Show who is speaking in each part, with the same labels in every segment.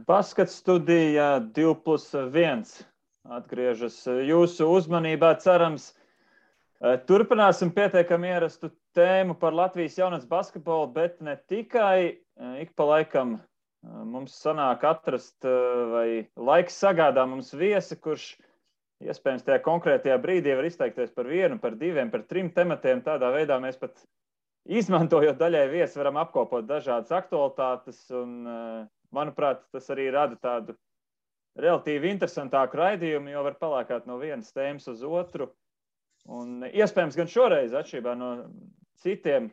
Speaker 1: Basket studija 2+1 atgriežas jūsu uzmanībā, cerams. Turpināsim pietiekami ierastu tēmu par Latvijas jaunatnes basketbolu, bet ne tikai. Ik pa laikam mums sanāk atrast vai laiks sagādā mums viesi, kurš iespējams tajā konkrētajā brīdī var izteikties par vienu, par diviem, par trim tematiem. Tādā veidā mēs pat izmantojot daļai viesi varam apkopot dažādas aktualitātes un, manuprāt, tas arī rada tādu relatīvi interesantāku raidījumu, jo var palēkāt no vienas tēmas uz otru. Un iespējams gan šoreiz, atšķirībā no citiem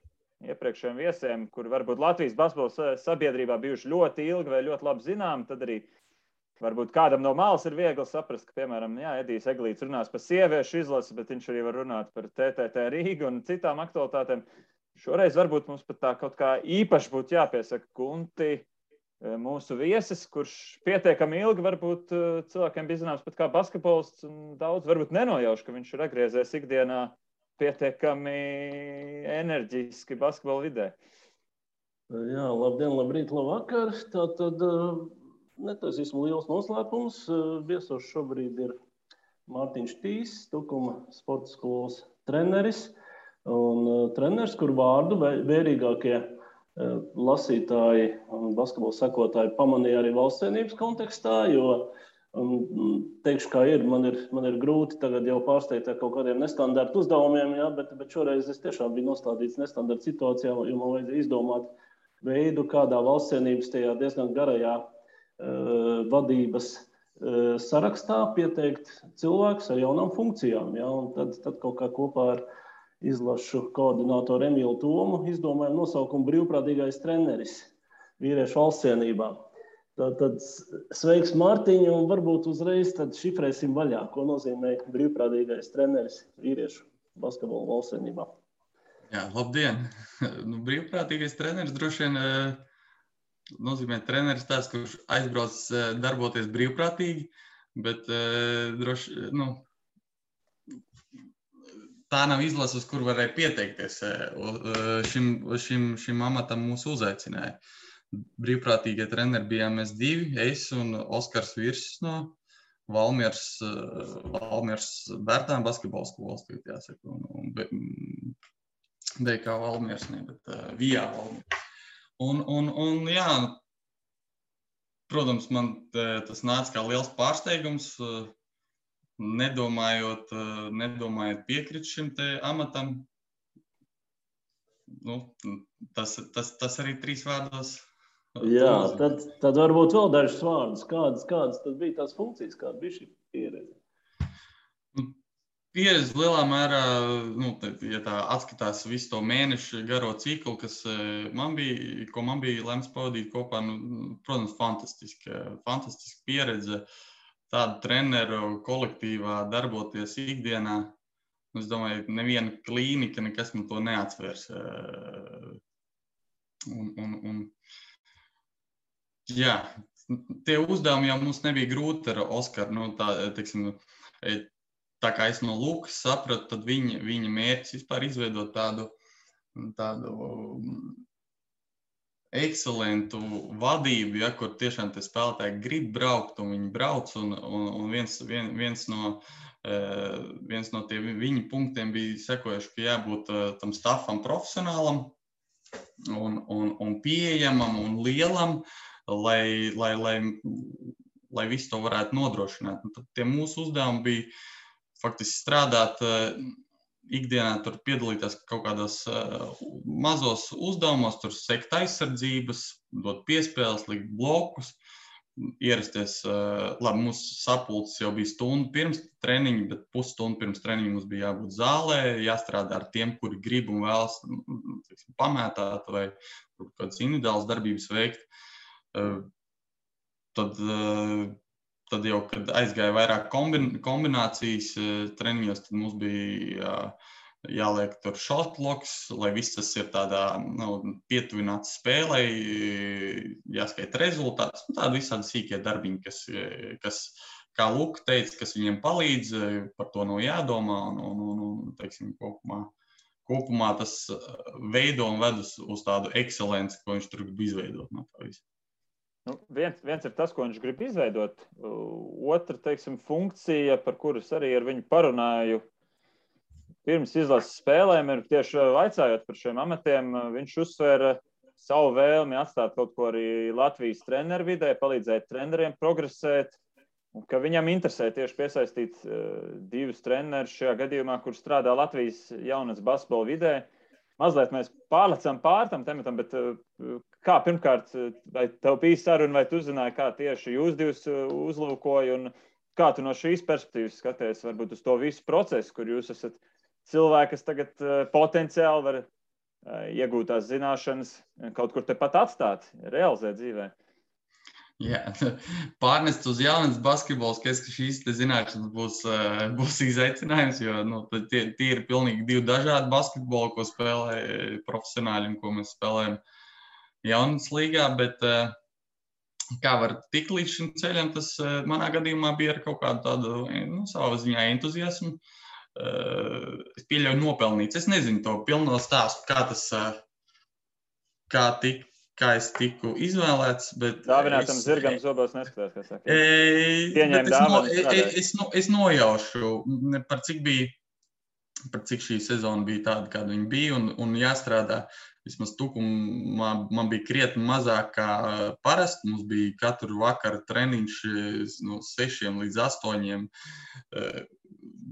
Speaker 1: iepriekšējiem viesiem, kuri varbūt Latvijas basketbola sabiedrībā bijuši ļoti ilgi vai ļoti labi zinām, tad arī varbūt kādam no malas ir viegli saprast, ka, piemēram, Edijs Eglīts runās par sieviešu izlasi, bet viņš arī var runāt par TTT Rīgu un citām aktualitātēm. Šoreiz varbūt mums pat tā kaut kā īpaši būtu jāpiesaka Gunti, mūsu viesis, kurš pietiekami ilgi varbūt cilvēkiem bija zināms pat kā basketbolists, un daudz varbūt nenojauš, ka viņš ir atgriezies ikdienā pietiekami enerģiski basketbola vidē.
Speaker 2: Jā, labdien, labrīt, labvakar. Tātad netaisīsim liels noslēpums. Viesos šobrīd ir Mārtiņš Tīs, Tukuma sporta skolas treneris. Un treneris, kur vārdu vērīgākie lasītāji un basketbola sekotāji pamanīja arī valsts cienības kontekstā, jo teikšu, kā ir, man ir grūti tagad jau pārsteigt ar kaut kādiem nestandarta uzdevumiem, jā, bet šoreiz es tiešām biju nostādīts nestandarta situācijā, jo man vajadzēja izdomāt veidu, kādā valsts cienības tajā diezgan garajā vadības sarakstā pieteikt cilvēkus ar jaunām funkcijām, jā, un tad kaut kā kopā ar izlašu koordinātoru Emīlu Tomu izdomājam nosaukumu brīvprātīgais treneris vīriešu valsts cienībā. Tad sveiks Mārtiņ, un varbūt uzreiz tad šifrēsim vaļā, ko nozīmē brīvprātīgais treneris vīriešu basketbola valsts cienībā.
Speaker 3: Jā, labdien! Brīvprātīgais treneris droši vien nozīmē treneris tāds, kurš aizbrauc darboties brīvprātīgi, bet droši, tā nav izlase, uz kur varēja pieteikties. Šim amatam mūs uzaicināja. Brīvprātīgie treneri bijām mēs divi, es un Oskars Virsis no Valmieras Bērtāna basketbola skolas, jāsaka, un BK Valmieras, ne, bet VIA Valmieras. Un jā, protams, man tas nāca kā liels pārsteigums, nedomājot piekrist šim te amatam. Tas arī 3 vārdos.
Speaker 2: Jā, tad varbūt vēl dažus vārdus. Kādas tad bija tās funkcijas, kāda bija šī pieredze?
Speaker 3: Pieredze lielā mērā, ja tā atskatās visu to mēnešu garo ciklu, kas man bija lemts pavadīt kopā, protams, fantastiska pieredze. Tādu treneru kolektīvā darboties ikdienā. Es domāju, neviena klīnika nekas man to neatsvērs. Jā, tie uzdevumi jau mums nebija grūti ar Oskaru. Tā kā es no Lukas sapratu, tad viņa mērķis vispār izveidot tādu ekscelentu vadību, ja, kur tiešām tie spēlētāji grib braukt un viņi brauc. Un viens no tie viņa punktiem bija sekojuši, ka jābūt tam stafam profesionālam un pieejamam un lielam, lai visu to varētu nodrošināt. Un tad tie mūsu uzdevumi bija faktiski strādāt ikdienā, tur piedalīties kaut kādos mazos uzdevumos, tur sekt aizsardzības, dot piespēles, likt blokus, ierasties. Labi, mūsu sapulces jau bija stundu pirms treniņa, bet pusstundu pirms treniņa mums bija jābūt zālē, jāstrādā ar tiem, kuri grib un vēlas pamētāt vai kādas individuālas darbības veikt. Tad jau, kad aizgāja vairāk kombinācijas treniņos, tad mums bija jāliek tur shotloks, lai viss tas ir tādā pietuvināts spēlei, jāskaita rezultāts. Tādi visādi sīkie darbiņi, kas, kā Luka teica, kas viņiem palīdz, par to nav jādomā. Un teiksim, kopumā tas veido un ved uz tādu ekscelenci, ko viņš tur grib izveidot no tā visu.
Speaker 1: Nu, viens ir tas, ko viņš grib izveidot. Otra, teiksim, funkcija, par kuras arī ar viņu parunāju pirms izlases spēlēm, ir tieši vaicājot par šiem amatiem. Viņš uzsvēra savu vēlmi atstāt kaut ko arī Latvijas treneru vidē, palīdzēt treneriem progresēt, un ka viņam interesē tieši piesaistīt divus trenerus šajā gadījumā, kur strādā Latvijas jaunas basketbola vidē. Mazliet mēs pārlecam pār tam tematam, bet kā pirmkārt, vai tev bija saruna, vai tu zināji, kā tieši jūs divus uzlūkoja, un kā tu no šīs perspektīvas skaties varbūt uz to visu procesu, kur jūs esat cilvēki, kas tagad potenciāli var iegūt tās zināšanas, kaut kur tepat atstāt, realizēt dzīvē.
Speaker 3: Jā, pārnest uz jaunas basketbols, ka šīs zināšanas būs izaicinājums, jo tie ir pilnīgi divi dažādi basketboli, ko spēlē profesionāļi un ko mēs spēlējam jaunas līgā, bet kā var tikt līdz šim ceļam, tas manā gadījumā bija ar kaut kādu tādu savā ziņā entuziasmu. Es pieļauju nopelnīts. Es nezinu to pilno stāstu, kā es tiku izvēlēts, bet
Speaker 1: dāvinātam zirgam zobos neskatās, kā saka. Pieņēma dāvanu.
Speaker 3: Es nojaušu, par cik šī sezona bija tāda, kāda viņa bija, un jāstrādā. Vismaz tukumā man bija krietni mazāk kā parasti. Mums bija katru vakaru treniņš no 6 līdz 8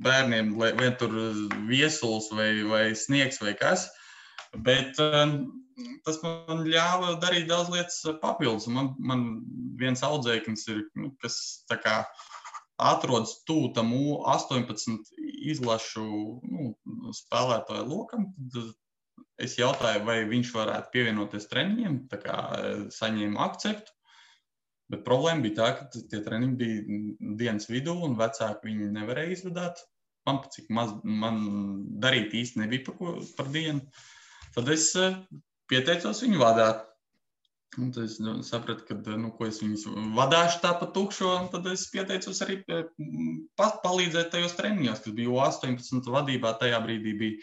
Speaker 3: bērniem, vai tur viesuls vai sniegs vai kas. Bet tas man ļāva darīt daudz lietas papildus. Man viens audzēknis ir, kas tā kā atrodas tuvu tam 18 izlašu spēlētāju lokam. Tad es jautāju, vai viņš varētu pievienoties treniņiem, tā kā saņēmu akceptu. Bet problēma bija tā, ka tie treniņi bija dienas vidū un vecāki viņi nevarēja izvadāt. Man darīt īsti nebija par dienu. Tad es pieteicos viņu vadāt. Un tad es sapratu, ka ko es viņus vadāšu tā pa tukšo, un tad es pieteicos arī palīdzēt tajos treniņos, kas bija 18 vadībā. Tajā brīdī bija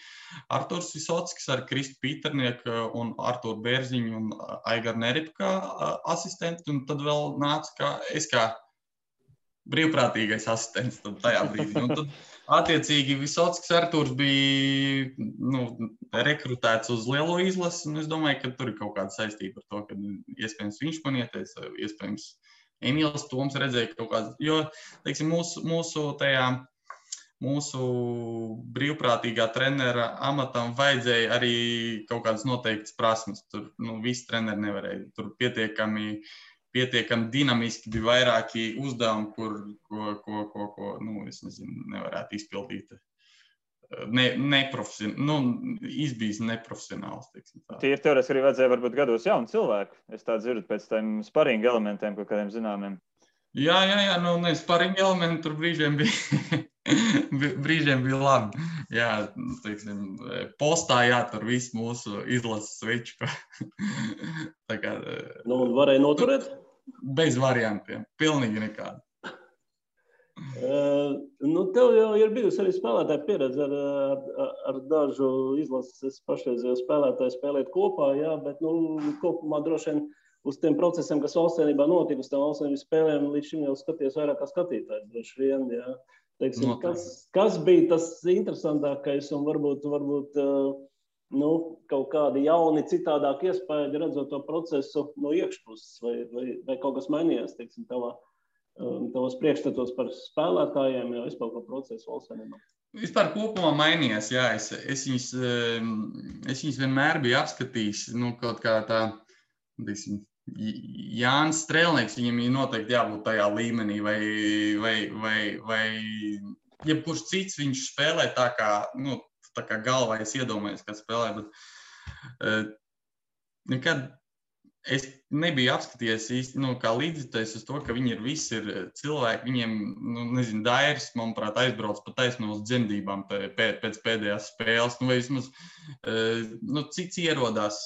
Speaker 3: Arturs Visockis ar Kristu Pīternieku un Arturu Bērziņu un Aigaru Neripu kā asistenti, un tad vēl nāca es kā brīvprātīgais asistents tajā brīdī. Un tad, attiecīgi, Visockis Arturs bija rekrutēts uz lielo izlasi, un es domāju, ka tur ir kaut kāda saistība ar to, ka iespējams viņš man ieteica, iespējams Emīls Toms redzēja kaut kāds, jo, teiksim, mūsu brīvprātīgā trenera amatam vajadzēja arī kaut kādas noteiktas prasmes. Tur, visi treneri nevarēja. Tur pietiekami dinamiski bija vairāki uzdevumi, ko es nezinu, nevarētu izpildīt. Izbijis neprofesionāls.
Speaker 1: Tīri teorētiski arī vajadzēja varbūt gados jaunu cilvēku. Es tā dzirdu pēc tiem sparinga elementiem, kaut kādiem zināmiem.
Speaker 3: Jā, sparinga elementi tur brīžiem bija labi. Jā, teiksim, postā jātur visu mūsu izlases sveču.
Speaker 2: Un varēja noturēt?
Speaker 3: Bez variantiem. Pilnīgi nekādi.
Speaker 2: Tev jau ir bijusi arī spēlētāja pieredze ar dažu izlases pašreizējo spēlētāju spēlēt kopā, jā, bet kopumā droši vien uz tiem procesiem, kas valstsvienībā notika, uz tām valstsvienības spēlēm, līdz šim jau skaties vairāk kā skatītājs, droši vien, jā. Teiksim, kas bija tas interesantākais un varbūt kaut kādi jauni, citādāki iespējas redzot to procesu no iekšpuses, vai kaut kas mainījās, teiksim, tavos priekšstatos par spēlētājiem, jau vispār par procesu valstsvienībā?
Speaker 3: Vispār kopumā mainījās, jā. Es viņus vienmēr biju apskatījis, kaut kā tā, teiksim, Jānis Strēlnieks, viņam ir noteikti jābūt tajā līmenī, vai jebkurš cits viņš spēlē tā kā galvā es iedomājos, kā spēlē, bet nekad es nebiju apskatījies īsti, kā līdzjutējis uz to, ka viņi visi ir cilvēki, viņiem, Dairis, manuprāt, aizbrauc pa taisno uz dzemdībām pēc pēdējās spēles, vai vismaz, cits ierodās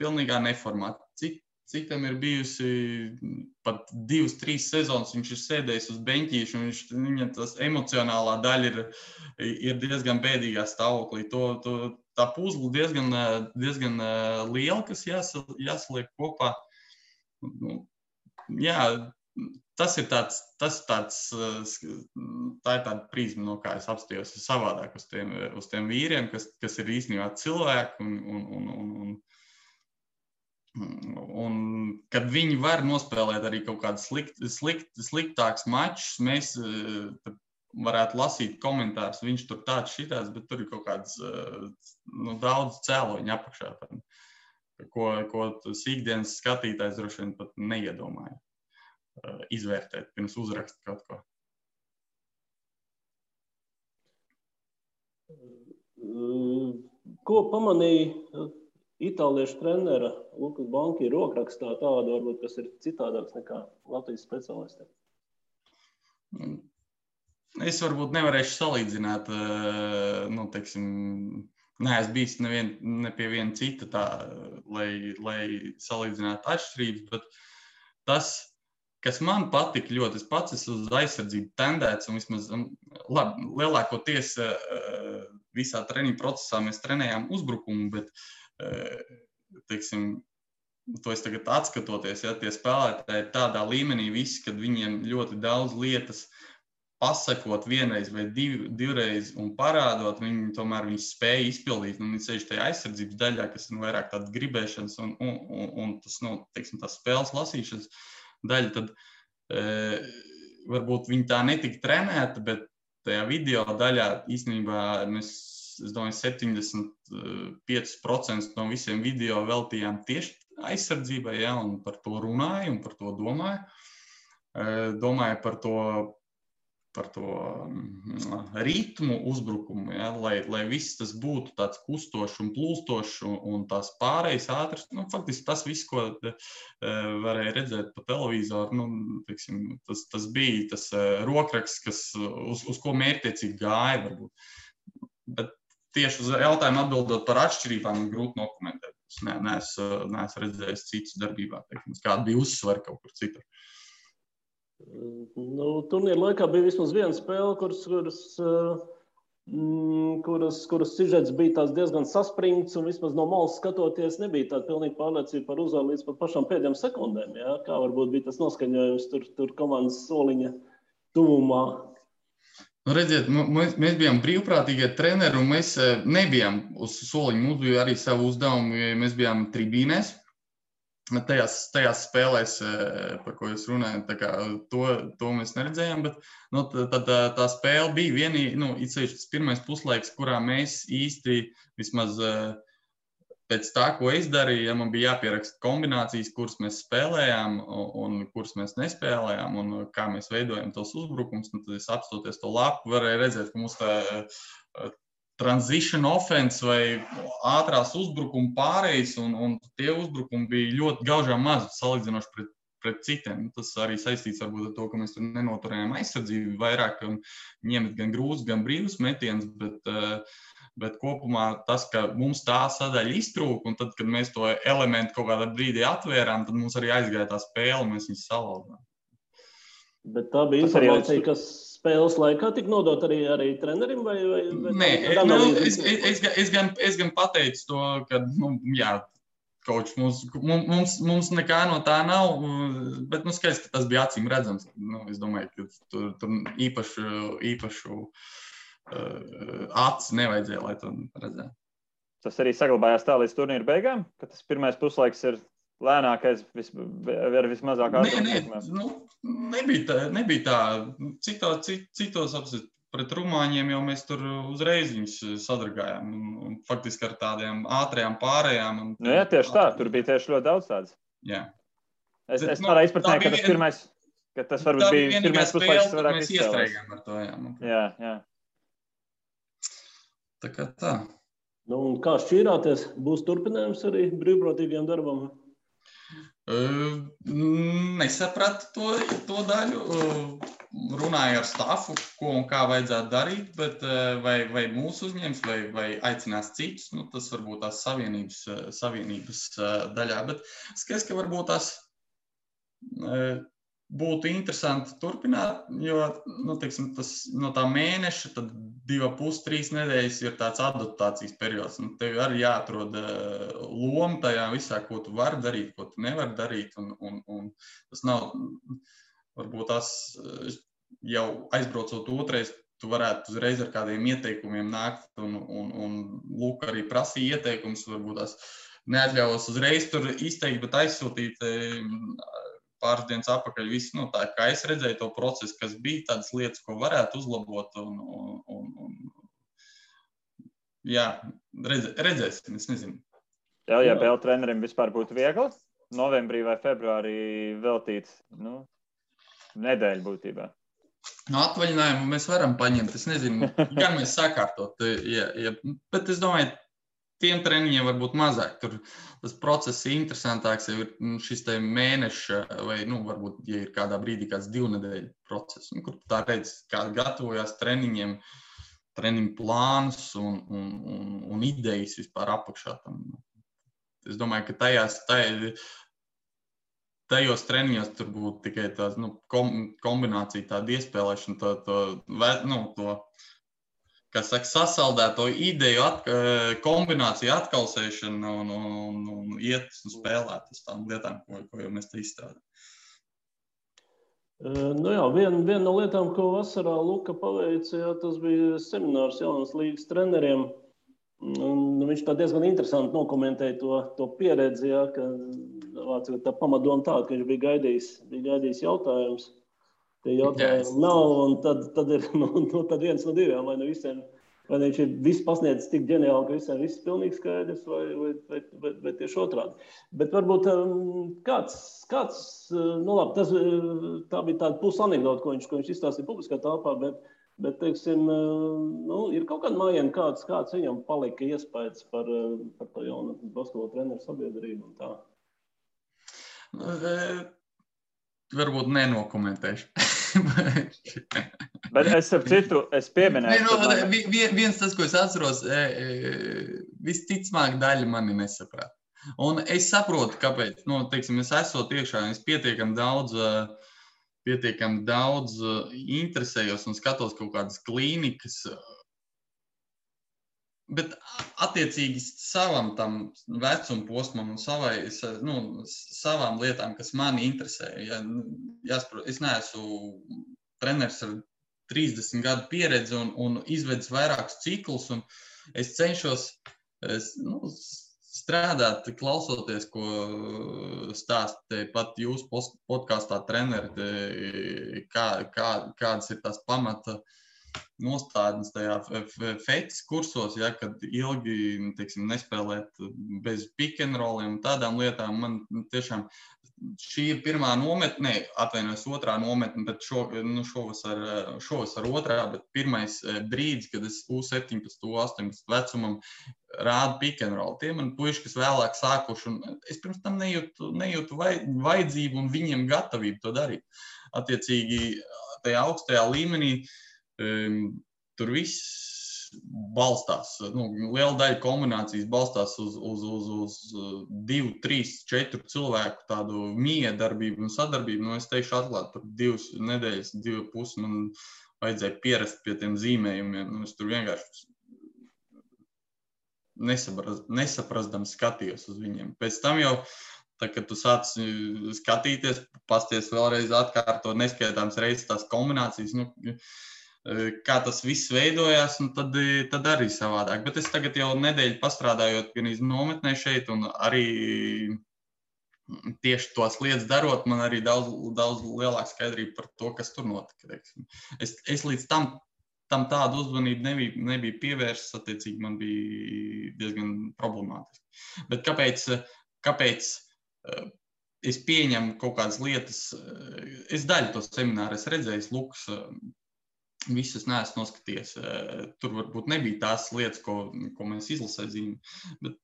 Speaker 3: pilnīgā neformāti, citam ir bijusi pat 2-3 sezonas, viņš ir sēdējis uz beņķīšu, un viņam tas emocionālā daļa ir diezgan bēdīgā stāvoklī. Tā puzle diezgan liela, kas jāsaliek kopā. jā, tas ir tāds, tā ir tāda prizma, no kā es apstījos savādāk uz tiem vīriem, kas ir īstenībā cilvēki un kad viņi var nospēlēt arī kaut kādus sliktākus mačus, mēs varētu lasīt komentārus, viņš tur tāds šitās, bet tur ir kaut kāds daudz cēloņu apakšā, ko tas ikdienas skatītājs droši vien pat neiedomāja izvērtēt pirms uzrakst kaut ko.
Speaker 2: Ko pamanīja itāliešu trenera Lukas Banki rokrakstā tādu, varbūt, kas ir citādāks nekā Latvijas speciālistiem?
Speaker 3: Es varbūt nevarēšu salīdzināt, neesmu bijis ne pie viena cita tā, lai salīdzinātu atšķirības, bet tas, kas man patika ļoti, es pats esmu uz aizsardzību tendēts, un vismaz, lielākoties visā treniņu procesā mēs trenējām uzbrukumu, bet, to es tagad atskatoties, ja tie spēlētāji ir tādā līmenī visi, kad viņiem ļoti daudz lietas pasakot vienreiz vai divreiz un parādot, viņi tomēr spēja izpildīt, un viņi ceļš tajā aizsardzības daļā, kas ir vairāk tādas gribēšanas un tas, tās spēles lasīšanas daļa, tad varbūt viņi tā netika trenēta, bet tajā video daļā īstenībā es domāju, 75% no visiem video veltījām tieši aizsardzībai, ja, un par to runāju un par to domāju. Domāju par to ritmu uzbrukumu, ja, lai viss tas būtu tāds kustošs un plūstošs un tās pārējas ātras. Faktiski tas viss, ko varēja redzēt pa televizoru, tas bija tas rokraksts, uz ko mērķtiecīgi gāja varbūt. Bet tieši uz jautājumu atbildot par atšķirībām, grūti nokomentēt. Es neesmu redzējis citus darbībā, kāda bija uzsvara kaut kur citur.
Speaker 2: Turnīra laikā bija vismaz viena spēle, kuras sižets bija tās diezgan saspringts, un vismaz no malas skatoties nebija tāda pilnīga pārliecība par uzvaru līdz pat pašām pēdējām sekundēm. Ja? Kā varbūt bija tas noskaņojums tur komandas soliņa tuvumā?
Speaker 3: Redziet, mēs bijām brīvprātīgie treneri, un mēs nebijām uz soliņa. Mums bija arī savu uzdevumu, mēs bijām tribīnēs. Tajās spēlēs, par ko jūs runājat, to mēs neredzējām, bet tā spēle bija vienīgi, tas pirmais puslaiks, kurā mēs īsti vismaz pēc tā, ko es darīju, ja man bija jāpieraksta kombinācijas, kuras mēs spēlējām un kuras mēs nespēlējām un kā mēs veidojam tos uzbrukums, tad es apstoties to lapu, varēju redzēt, ka mums tā transition offense vai ātrās uzbrukuma pārējas un tie uzbrukumi bija ļoti gaužām mazi salīdzinoši pret citiem. Tas arī saistīts varbūt ar to, ka mēs tur nenoturējām aizsardzību vairāk un ņemt gan grūzus, gan brīvus metienus, bet kopumā tas, ka mums tā sadaļa iztrūka, un tad, kad mēs to elementu kaut kādā brīdī atvērām, tad mums arī aizgāja tā spēle, un mēs viņus salauzām.
Speaker 2: Bet tā bija informācija, kas spēles laikā tika nodot arī trenerim?
Speaker 3: Nē, es gan pateicu to, ka, Koč, mums nekā no tā nav, bet skaidrs, ka tas bija acīm redzams. Es domāju, ka tur īpašu acis nevajadzēja, lai to redzētu. Tas
Speaker 1: arī saglabājās tā līdz turnīra beigām, ka tas pirmais puslaiks ir lēnākais ar vismazāk ārkārtības?
Speaker 3: Nebija tā. Citos apsit pret rumāņiem jau mēs tur uzreiz viņus sadragājām. Un faktiski ar tādiem ātrajām pārējām.
Speaker 1: Jā, tieši tā. Tur bija tieši ļoti daudz tādas.
Speaker 3: Jā.
Speaker 1: Es tādā izpratnē, ka tas varbūt bija pirmais puslaiks, kas varētu
Speaker 3: izcēlēs. Mēs iestrēgām ar to, jā.
Speaker 1: Jā.
Speaker 3: Tā kā tā.
Speaker 2: Un kā šķīrāties? Būs turpinājums arī brīvprātīgiem darbam?
Speaker 3: Nesapratu to daļu. Runāju ar stafu, ko un kā vajadzētu darīt, bet vai mūsu uzņems, vai aicinās citus, tas varbūt tās savienības daļā. Bet skaidrs, ka varbūt tās būtu interesanti turpināt, jo, teiksim, tas no tā mēneša, tad 2,5–3 nedēļas ir tāds adaptācijas periods. Tev arī jāatrod loma tajā visā, ko tu vari darīt, ko tu nevari darīt, un tas nav, varbūt tas jau aizbraucot otrais, tu varētu uzreiz ar kādiem ieteikumiem nākt, un lūk, arī prasīja ieteikums, varbūt tās neatļaujos uzreiz tur izteikt, bet aizsūtīt pāris dienas atpakaļ visu, tā kā es redzēju to procesu, kas bija tādas lietas, ko varētu uzlabot, un jā, redzēsim, es nezinu.
Speaker 1: Ja PL trenerim vispār būtu viegli novembrī vai februārī veltīt, nedēļu būtībā.
Speaker 3: Atvaļinājumu mēs varam paņemt, es nezinu, gan mēs sakārtot, bet es domāju, tiem treniņiem varbūt mazāk. Tur tas process ir interesantāks, jau ir šis te mēneša vai, varbūt, ja ir kādā brīdī kāds 2 nedēļu process, kur tā redz, kā gatavojās treniņiem, treniņu plānus un idejas vispār apakšā tam. Es domāju, ka tajos treniņos tur būtu tikai tās, kombinācija, tāda iespēlēšana, to kas saka, sasaldēto ideju, kombināciju atkalsēšana un iet un spēlēt uz tām lietām, ko jau mēs te izstrādājam.
Speaker 2: Viena no lietām, ko vasarā Luka paveica, tas bija seminārs jaunas līgas treneriem. Viņš tā diezgan interesanti nokomentēja to pieredzi, ka tā pamatdoma tāda, ka viņš bija gaidījis jautājums. Tie jautājumi nav, un tad ir tad viens no diviem, vai viņš ir viss pasniedzis tik ģeniāli, ka visiem viss pilnīgi skaidrs, vai tieši otrādi. Bet varbūt kāds tā bija tāda pusanekdota, ko viņš izstāstīja publiskā telpā, bet teiksim, ir kaut kāda mājiena, kāds viņam palika iespējas par to jaunu basketbola treneru sabiedrību un tā.
Speaker 3: Varbūt nenokomentēšu.
Speaker 1: Bet es pieminēšu.
Speaker 3: Viens tas, ko es atceros, visticamāk daļa mani nesaprāt. Un es saprotu, kāpēc. Teiksim, es esot iekšā, es pietiekami daudz interesējos un skatos kaut kādas klīnikas. Bet attiecīgi savam tam vecuma posmam un savām lietām, kas mani interesē. Es neesmu treneris ar 30 gadu pieredzi un izvedis vairākus ciklus, un es cenšos strādāt, klausoties, ko stāsta pat jūsu podkāstā treneri, kādas ir tās pamata nostādnes tajā fetis kursos, kad ilgi, teiksim, nespēlēt bez pick and rolliem un tādām lietām. Man tiešām šī ir pirmā nometne, otrā nometne, bet šovasar otrā, bet pirmais brīdis, kad es U17, U18 vecumam rādu pick and roll. Tie man puiši, kas vēlāk sākuši, un es pirms tam nejūtu vajadzību un viņiem gatavību to darīt. Attiecīgi, tajā augstajā līmenī tur viss balstās, liela daļa kombinācijas balstās uz 2, 3, 4 cilvēku tādu miedarbību un sadarbību. Es teikšu atklāt, par 2 nedēļas, 2,5 man vajadzēja pierast pie tiem zīmējumiem. Es tur vienkārši nesaprastams skatījos uz viņiem. Pēc tam jau, kad tu sāc skatīties, pasties vēlreiz atkārtot neskaitāms reizes tās kombinācijas, kā tas viss veidojās, un tad arī savādāk. Bet es tagad jau nedēļu pastrādājot gan iz nometnē šeit, un arī tieši tos lietas darot, man arī daudz lielāka skaidrība par to, kas tur notika. Es līdz tam tādu uzmanību nebija pievērsts, attiecīgi man bija diezgan problemātiski. Bet kāpēc es pieņemu kaut kādas lietas, es daļu to semināru es redzēju, Lukas, visus neesmu noskatījies. Tur varbūt nebija tās lietas, ko mēs izlasē zīmē, bet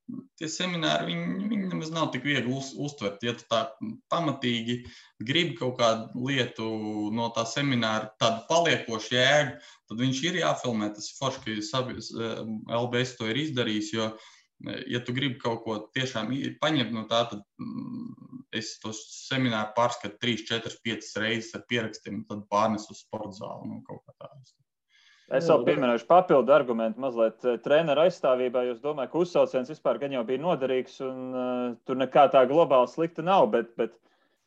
Speaker 3: tie semināri, viņi nemaz nav tik viegli uztvert. Ja tu tā pamatīgi gribi kaut kādu lietu no tā semināra, tādu paliekošu jēgu, tad viņš ir jāfilmē. Tas ir forši, ka LBS to ir izdarījis, jo ja tu gribi kaut ko tiešām paņemt no tā, tad es to semināru pārskatu 3, 4, 5 reizes ar pierakstiem, tad pārnes uz sporta zāli, kaut kā tā.
Speaker 1: Es vēl pieminēšu papildu argumentu mazliet treneru aizstāvībā, jo es domāju, ka uzsauciens vispār gan jau bija noderīgs un tur nekā tā globāli slikta nav, bet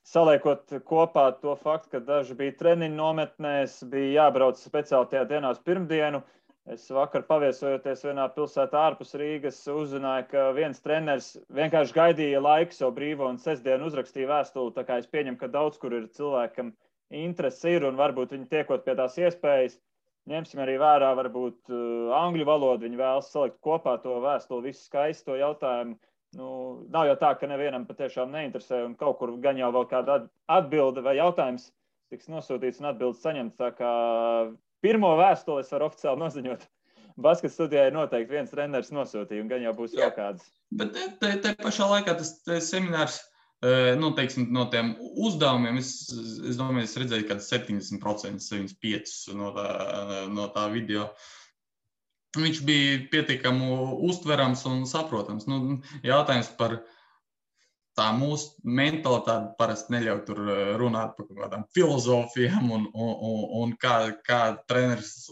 Speaker 1: saliekot kopā to faktu, ka daži bija treniņu nometnēs, bija jābrauc speciāli tajā dienā uz pirmdienu. Es vakar paviesojoties vienā pilsētā ārpus Rīgas uzzināju, ka viens treneris vienkārši gaidīja laiku savu brīvo un sestdienu uzrakstīja vēstuli, tā kā es pieņemu, ka daudz kur ir cilvēkam interesi ir un varbūt viņi tiekot pie tās iespējas. Ņemsim arī vērā, varbūt angļu valodu, viņi vēlas salikt kopā to vēstuli, visu skaisti to jautājumu. Nav jau tā, ka nevienam patiešām neinteresē un kaut kur gan jau vēl kāda atbilde vai jautājums tiks nosūtīts un atbildes saņemts. Tā kā pirmo vēstuli es varu oficiāli noziņot. Basket studijai noteikti viens treneris nosūtīja un gan jau būs vēl kādas.
Speaker 3: Bet te pašā laikā tas seminārs, teiksim, no tiem uzdevumiem, es domāju, es redzēju kāds 70%, 75% no tā video. Viņš bija pietiekami uztverams un saprotams. Jautājums par tā mūsu mentalitāti parasti neļauj tur runāt par kaut kādām filozofijām un kā treneris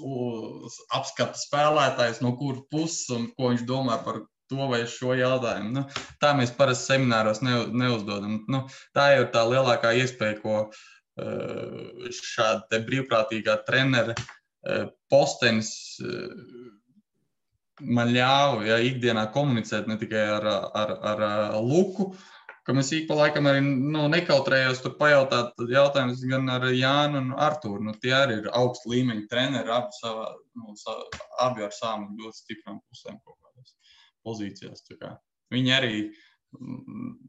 Speaker 3: apskata spēlētājs, no kuras puses un ko viņš domā par to vai šo jautājumu. Tā mēs parasti semināros neuzdodam. Tā jau ir tā lielākā iespēja, ko šāda te brīvprātīgā trenera postenis man ļāva ikdienā komunicēt ne tikai ar Luku, ka mēs ik pa laikam arī nekautrējos tur pajautāt jautājumus gan ar Jānu un Artūru. Tie arī ir augsta līmeņa treneri, abi ar savām ļoti stiprām pusēm kaut kādās pozīcijās. Viņi arī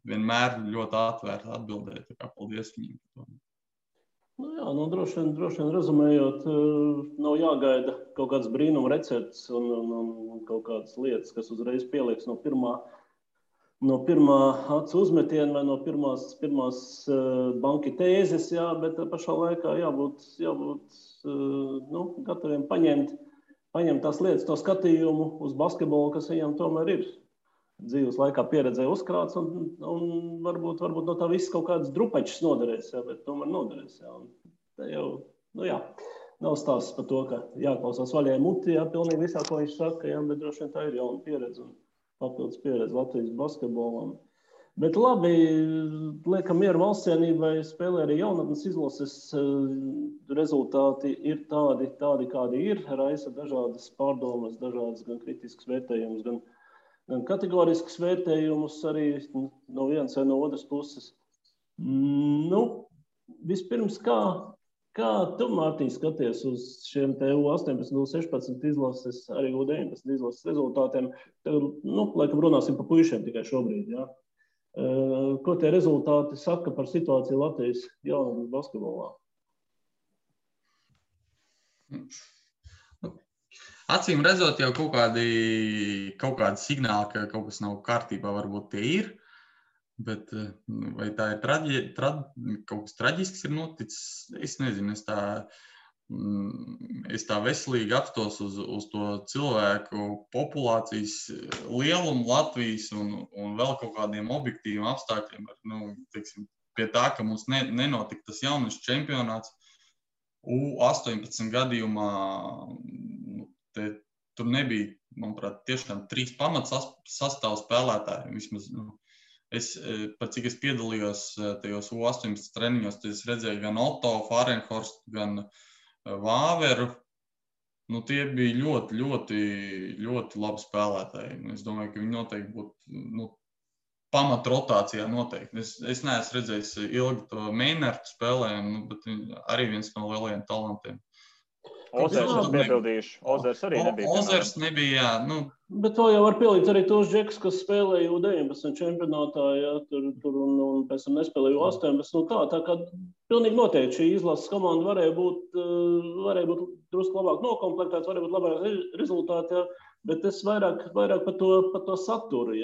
Speaker 3: vienmēr ļoti atvērti atbildēja. Paldies viņiem par to.
Speaker 2: Droši vien rezumējot, nav jāgaida kaut kāds brīnuma recepts un kaut kādas lietas, kas uzreiz pielieks no pirmā acu uzmetiena vai no pirmās banki tēzes, bet pašā laikā jābūt gataviem paņemt tās lietas, to skatījumu uz basketbolu, kas viņam tomēr ir dzīves laikā pieredzē uzkrāts un varbūt no tā viss kaut kāds drupačs noderēs, bet tomēr noderēs. Tā jau, nav stāsts par to, ka jāklausās vaļai muti, pilnīgi visā, ko viņš saka, bet droši vien tā ir jauna pieredze un papildus pieredze Latvijas basketbolam. Bet labi, liekam mieru valstsienībai, spēlē arī jaunatnes izlases, rezultāti ir tādi, kādi ir, raisa dažādas pārdomas, dažādas gan kritiskas vērtējumus, gan kategoriskas vērtējumus arī no vienas vai no otras puses. Vispirms, kā tu, Mārtiņ, skaties uz šiem te U18, U16 izlases, arī U19 izlases rezultātiem? Laikam runāsim par puišiem tikai šobrīd, jā. Ko tie rezultāti saka par situāciju Latvijas jaunatnes basketbolā?
Speaker 3: Acīm redzot, jau kaut kādi signāli, ka kaut kas nav kārtībā, varbūt tie ir, bet vai tā ir kaut kas traģisks ir noticis, es nezinu, es tā veselīgi apstos uz to cilvēku populācijas lielumu Latvijas un vēl kaut kādiem objektīviem apstākļiem, teiksim, pie tā, ka mums nenotika tas jauniešu čempionāts U18 gadījumā. Tur nebija, manuprāt, tiešām 3 pamats sastāvu spēlētāji. Vismaz, cik es piedalījos tajos U18 treniņos, tad es redzēju gan Otto, Fahrenhorstu, gan Vāveru. Tie bija ļoti, ļoti, ļoti labi spēlētāji. Es domāju, ka viņi noteikti būtu pamat rotācijā noteikti. Es neesmu redzējis ilgi to Meinertu spēlējumu, bet arī viens no lielajiem talantiem.
Speaker 1: Ozers es piebildīšu. Ozers arī nebija.
Speaker 3: Ozers nebija, jā.
Speaker 2: Bet to jau var pielikt arī tos džekus, kas spēlēja U19 čempionātā, tur un pēc tam nespēlēja U18. Tā kā pilnīgi noteikti šī izlases komanda varēja būt drusku labāk nokomplektēts, varēja būt labāk rezultāti, bet es vairāk par to saturu,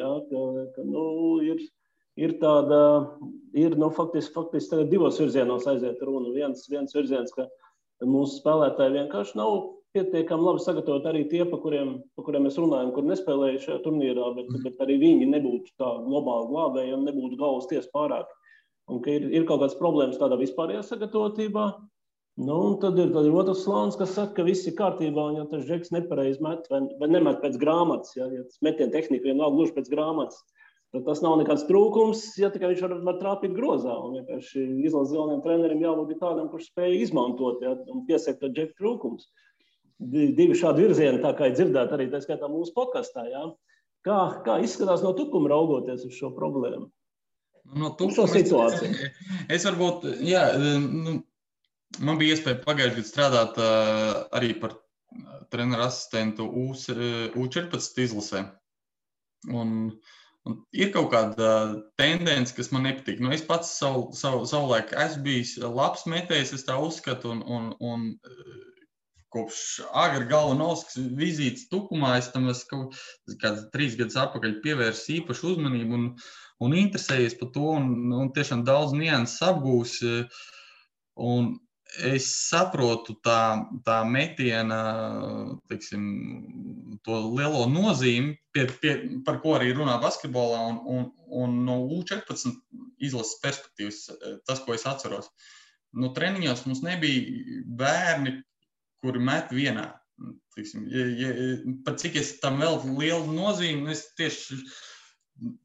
Speaker 2: ka ir tāda, faktiski tagad divos virzienos aiziet runa. Viens virziens, ka mūsu spēlētāji vienkārši nav pietiekami labi sagatavot arī tie, pa kuriem mēs runājam, kur nespēlēja šajā turnīrā, bet arī viņi nebūtu tā globāli glābēji un nebūtu galvas ties pārāk. Un ka ir kaut kādas problēmas tādā vispārējā sagatavotībā. Nu, un tad ir otrs slānis, kas saka, ka viss ir kārtībā, un ja tas žeks nepareizi met vai nemet pēc grāmatas, ja tas metiena tehnika vienalga gluži pēc grāmatas, tad tas nav nekāds trūkums, ja tikai viņš var trāpīt grozā. Un vienkārši izlases galvenajam trenerim jābūt tādam, kurš spēja izmantot, ja, un piesekt to džeku trūkums. Divi šādi virzieni, tā kā ir dzirdēt arī tā skaitā mūsu podkastā. Ja. Kā izskatās no tukuma raugoties uz šo problēmu?
Speaker 3: No tukuma situāciju. Es varbūt, jā, man bija iespēja pagājušajā gadā strādāt arī par treneru asistentu U14 izlasē. Un ir kaut kāda tendence, kas man nepatīk. Es pats savulaik esmu bijis labs metējs, es tā uzskatu, un kopš agri galvanovskas vizītes tukumā es tam kaut kāds 3 gadus atpakaļ pievērsu īpašu uzmanību un interesējies par to, un tiešām daudz nianses apgūs. Un es saprotu tā metiena, teiksim, to lielo nozīmi, par ko arī runā basketbolā, un no U14 izlases perspektīvas, tas, ko es atceros. No treniņos mums nebija bērni, kuri met vienā. Pat cik es tam vēl lielu nozīmi, es tieši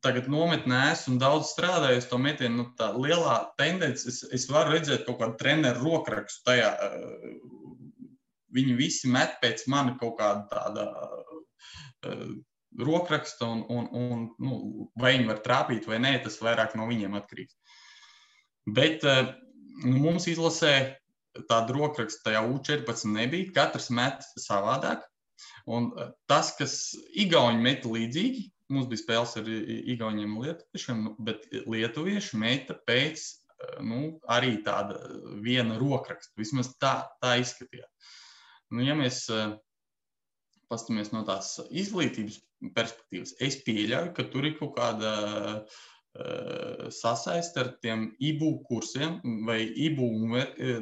Speaker 3: tagad nometnē esmu daudz strādājis to metienu, tā lielā tendence, es varu redzēt kaut kādu treneru rokrakstu tajā. Viņi visi met pēc mani kaut kāda tāda rokraksta, un vai viņi var trāpīt vai nē, tas vairāk no viņiem atkarīgs. Bet mums izlasē tāda rokraksta tajā U14 nebija, katrs met savādāk. Un tas, kas igauņi meta līdzīgi, mums bija spēles ar igauņiem un lietuviešiem, bet lietuvieši meta pēc arī tāda viena rokraksta. Vismaz tā izskatījās. Ja mēs pastamies no tās izglītības perspektīvas, es pieļauju, ka tur ir kaut kāda sasaist ar tiem IBU kursiem, vai IBU,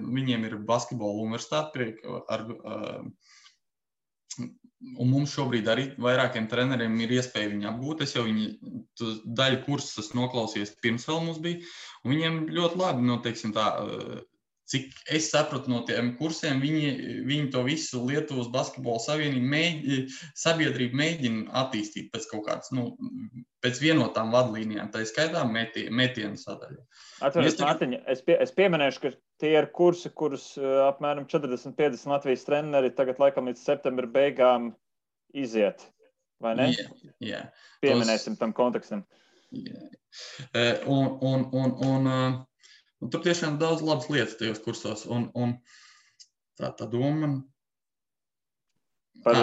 Speaker 3: viņiem ir basketbola universitāte, un mums šobrīd arī vairākiem treneriem ir iespēja viņu apgūt. Es jau daļu kursus esmu noklausījies pirms vēl mums bija, un viņiem ļoti labi, teiksim tā, cik es sapratu no tiem kursiem, viņi to visu Lietuvas basketbola sabiedrību mēģina attīstīt pēc kaut kādas, pēc vienotām vadlīnijām, tā skaitā metienu sadaļu.
Speaker 1: Atveries, Mārtiņa, es pieminēšu, ka tie ir kursi, kurus apmēram 40-50 Latvijas treneri tagad laikam līdz septembra beigām iziet, vai ne?
Speaker 3: Jā.
Speaker 1: Pieminēsim tam kontekstam.
Speaker 3: Jā. Un tur tiešām daudz labas lietas tajos kursos, un tā doma. Kā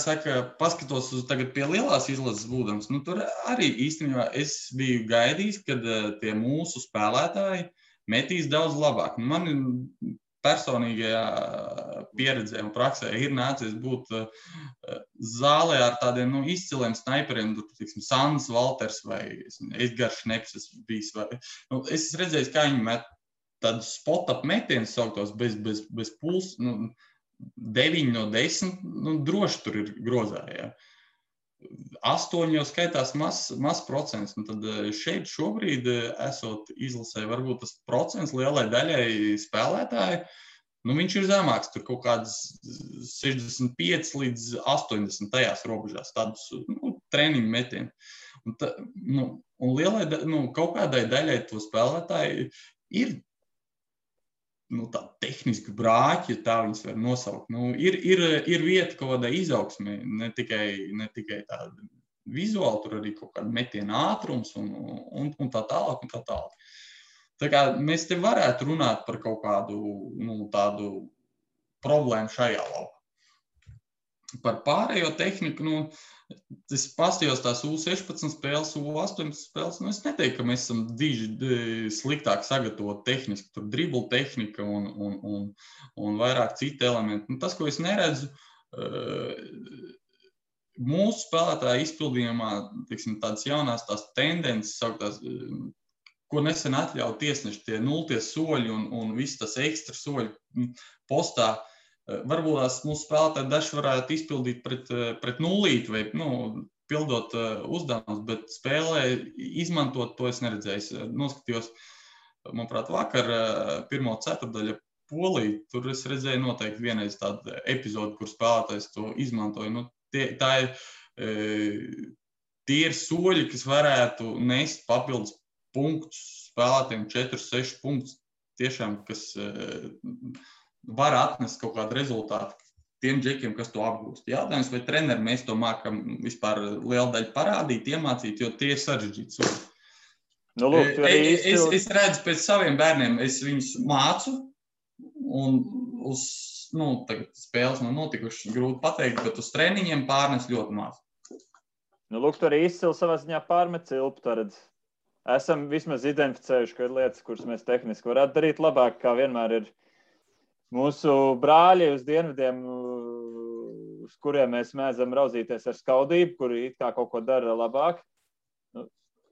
Speaker 3: saka, paskatos uz tagad pie lielās izlases būdams, tur arī īstenībā es biju gaidījis, kad tie mūsu spēlētāji metīs daudz labāk. Man personīgajā pieredzē un praksē ir nācies būt zālē ar tādiem izciliem snaiperiem, tiksim, Sandis Valters vai Edgars Šneps esmu bijis. Es redzēju, kā viņi met tādus spot-up metienus sauktos bez puls, 9 no 10, droši tur ir grozā, jā. 8 jau skaitās maz procents, un tad šeit šobrīd esot izlasē, varbūt tas procents lielai daļai spēlētāji, viņš ir zemāks, tur kaut kāds 65 līdz 80 tajās robežās, tādus treniņu metienu. Un lielai, kaut kādai daļai to spēlētāji ir tā tehniski brāķi, tā viņas var nosaukt. Ir vieta kaut kādai izaugsmē, ne tikai tāda vizuāli, tur arī kaut kāda metiena ātrums un tā tālāk un tā tālāk. Tā kā mēs te varētu runāt par kaut kādu tādu problēmu šajā laukā. Par pārējo tehniku, es pastījos tās U16 spēles, U18 spēles, es neteiktu, ka mēs esam diži sliktāk sagatavot tehniski, tur dribla tehnika un vairāk citi elementi. Tas, ko es neredzu, mūsu spēlētāju izpildījumā, teiksim, tādas jaunās tās tendences, sauktās, ko nesen atļauj tiesneši, tie 0 soļi un viss tas ekstra soļi postā, varbūt mūsu spēlētāji daži varētu izpildīt pret nulīti vai, pildot uzdevumus, bet spēlē izmantot to es neredzēju. Noskatījos, manuprāt, vakar pirmo ceturdaļu Poliju, tur es redzēju noteikti vienreiz tādu epizodu, kur spēlētājs to izmantoja. Tie ir soļi, kas varētu nest papildus punktus spēlētājiem, 4-6 punktus, tiešām, kas var atnest kaut kādu rezultātu tiem džekiem, kas to apgūst. Jautājums, vai treneri mēs to mākam vispār lielu daļu parādīt, iemācīt, jo tie ir sarežģīti soļi. Es redzu pēc saviem bērniem, es viņus mācu, un uz tagad spēles nav notikušas, grūti pateikt, bet uz treniņiem pārnes ļoti maz.
Speaker 1: Lūk, tu arī izcili savā ziņā pārmet cilpu, redz. Esam vismaz identificējuši, ka ir lietas, kuras mēs tehniski varētu darīt labāk, kā vienmēr ir mūsu brāļi uz dienvidiem, uz kuriem mēs mēdzam raudzīties ar skaudību, kuri it kā kaut ko dara labāk.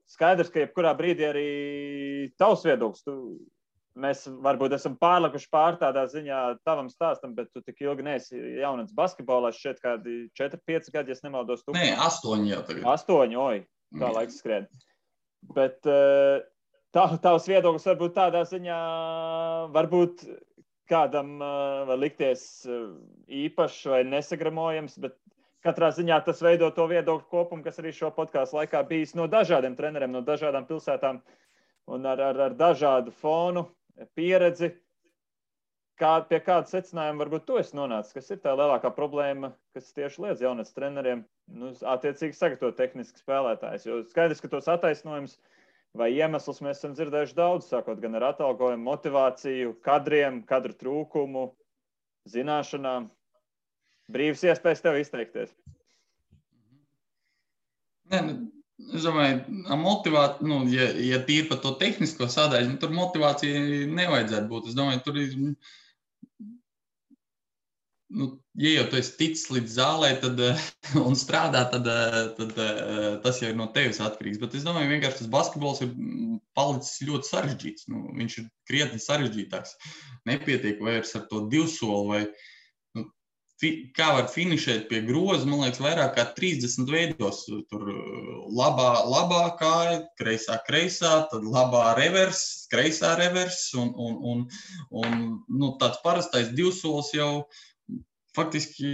Speaker 1: Skaidrs, ka jebkurā brīdī arī tavs viedoklis. Mēs varbūt esam pārlikuši tādā ziņā tavam stāstam, bet tu tik ilgi neesi jaunats basketbolā, šķiet kādi 4-5 gadi, ja es nemaldos.
Speaker 3: Nē, 8 jau tagad.
Speaker 1: 8, kā laiks skrien. Bet tavs viedoklis varbūt tādā ziņā, varbūt kādam var likties īpašs vai nesagramojams, bet katrā ziņā tas veido to viedokļu kopumu, kas arī šo podcastu laikā bijis no dažādiem treneriem, no dažādām pilsētām un ar dažādu fonu, pieredzi. Pie kāda secinājuma varbūt tu esi nonācis? Kas ir tā lielākā problēma, kas tieši liedz jaunats treneriem attiecīgi sagatavot tehniski spēlētājs? Jo skaidrs, ka tos attaisnojums vai iemeslus mēs esam dzirdējuši daudz, sākot gan ar atalgojumu, motivāciju, kadriem, kadru trūkumu, zināšanām. Brīvs iespējas tev izteikties.
Speaker 3: Es domāju, motivācija, ja tīri par to tehnisko sadaļu, tur motivācija nevajadzētu būt. Es domāju, tur ir, ja jau tu esi ticis līdz zālē un strādā, tad tas jau ir no tevis atkarīgs. Bet es domāju, vienkārši tas basketbols ir palicis ļoti sarežģīts. Viņš ir krietni sarežģītāks. Nepietiek vairs ar to divsoli vai kā var finišēt pie groza, man liekas, vairāk kā 30 veidos. Tur labā kāja, kreisā, tad labā revers, kreisā revers un tāds parastais divsolis jau faktiski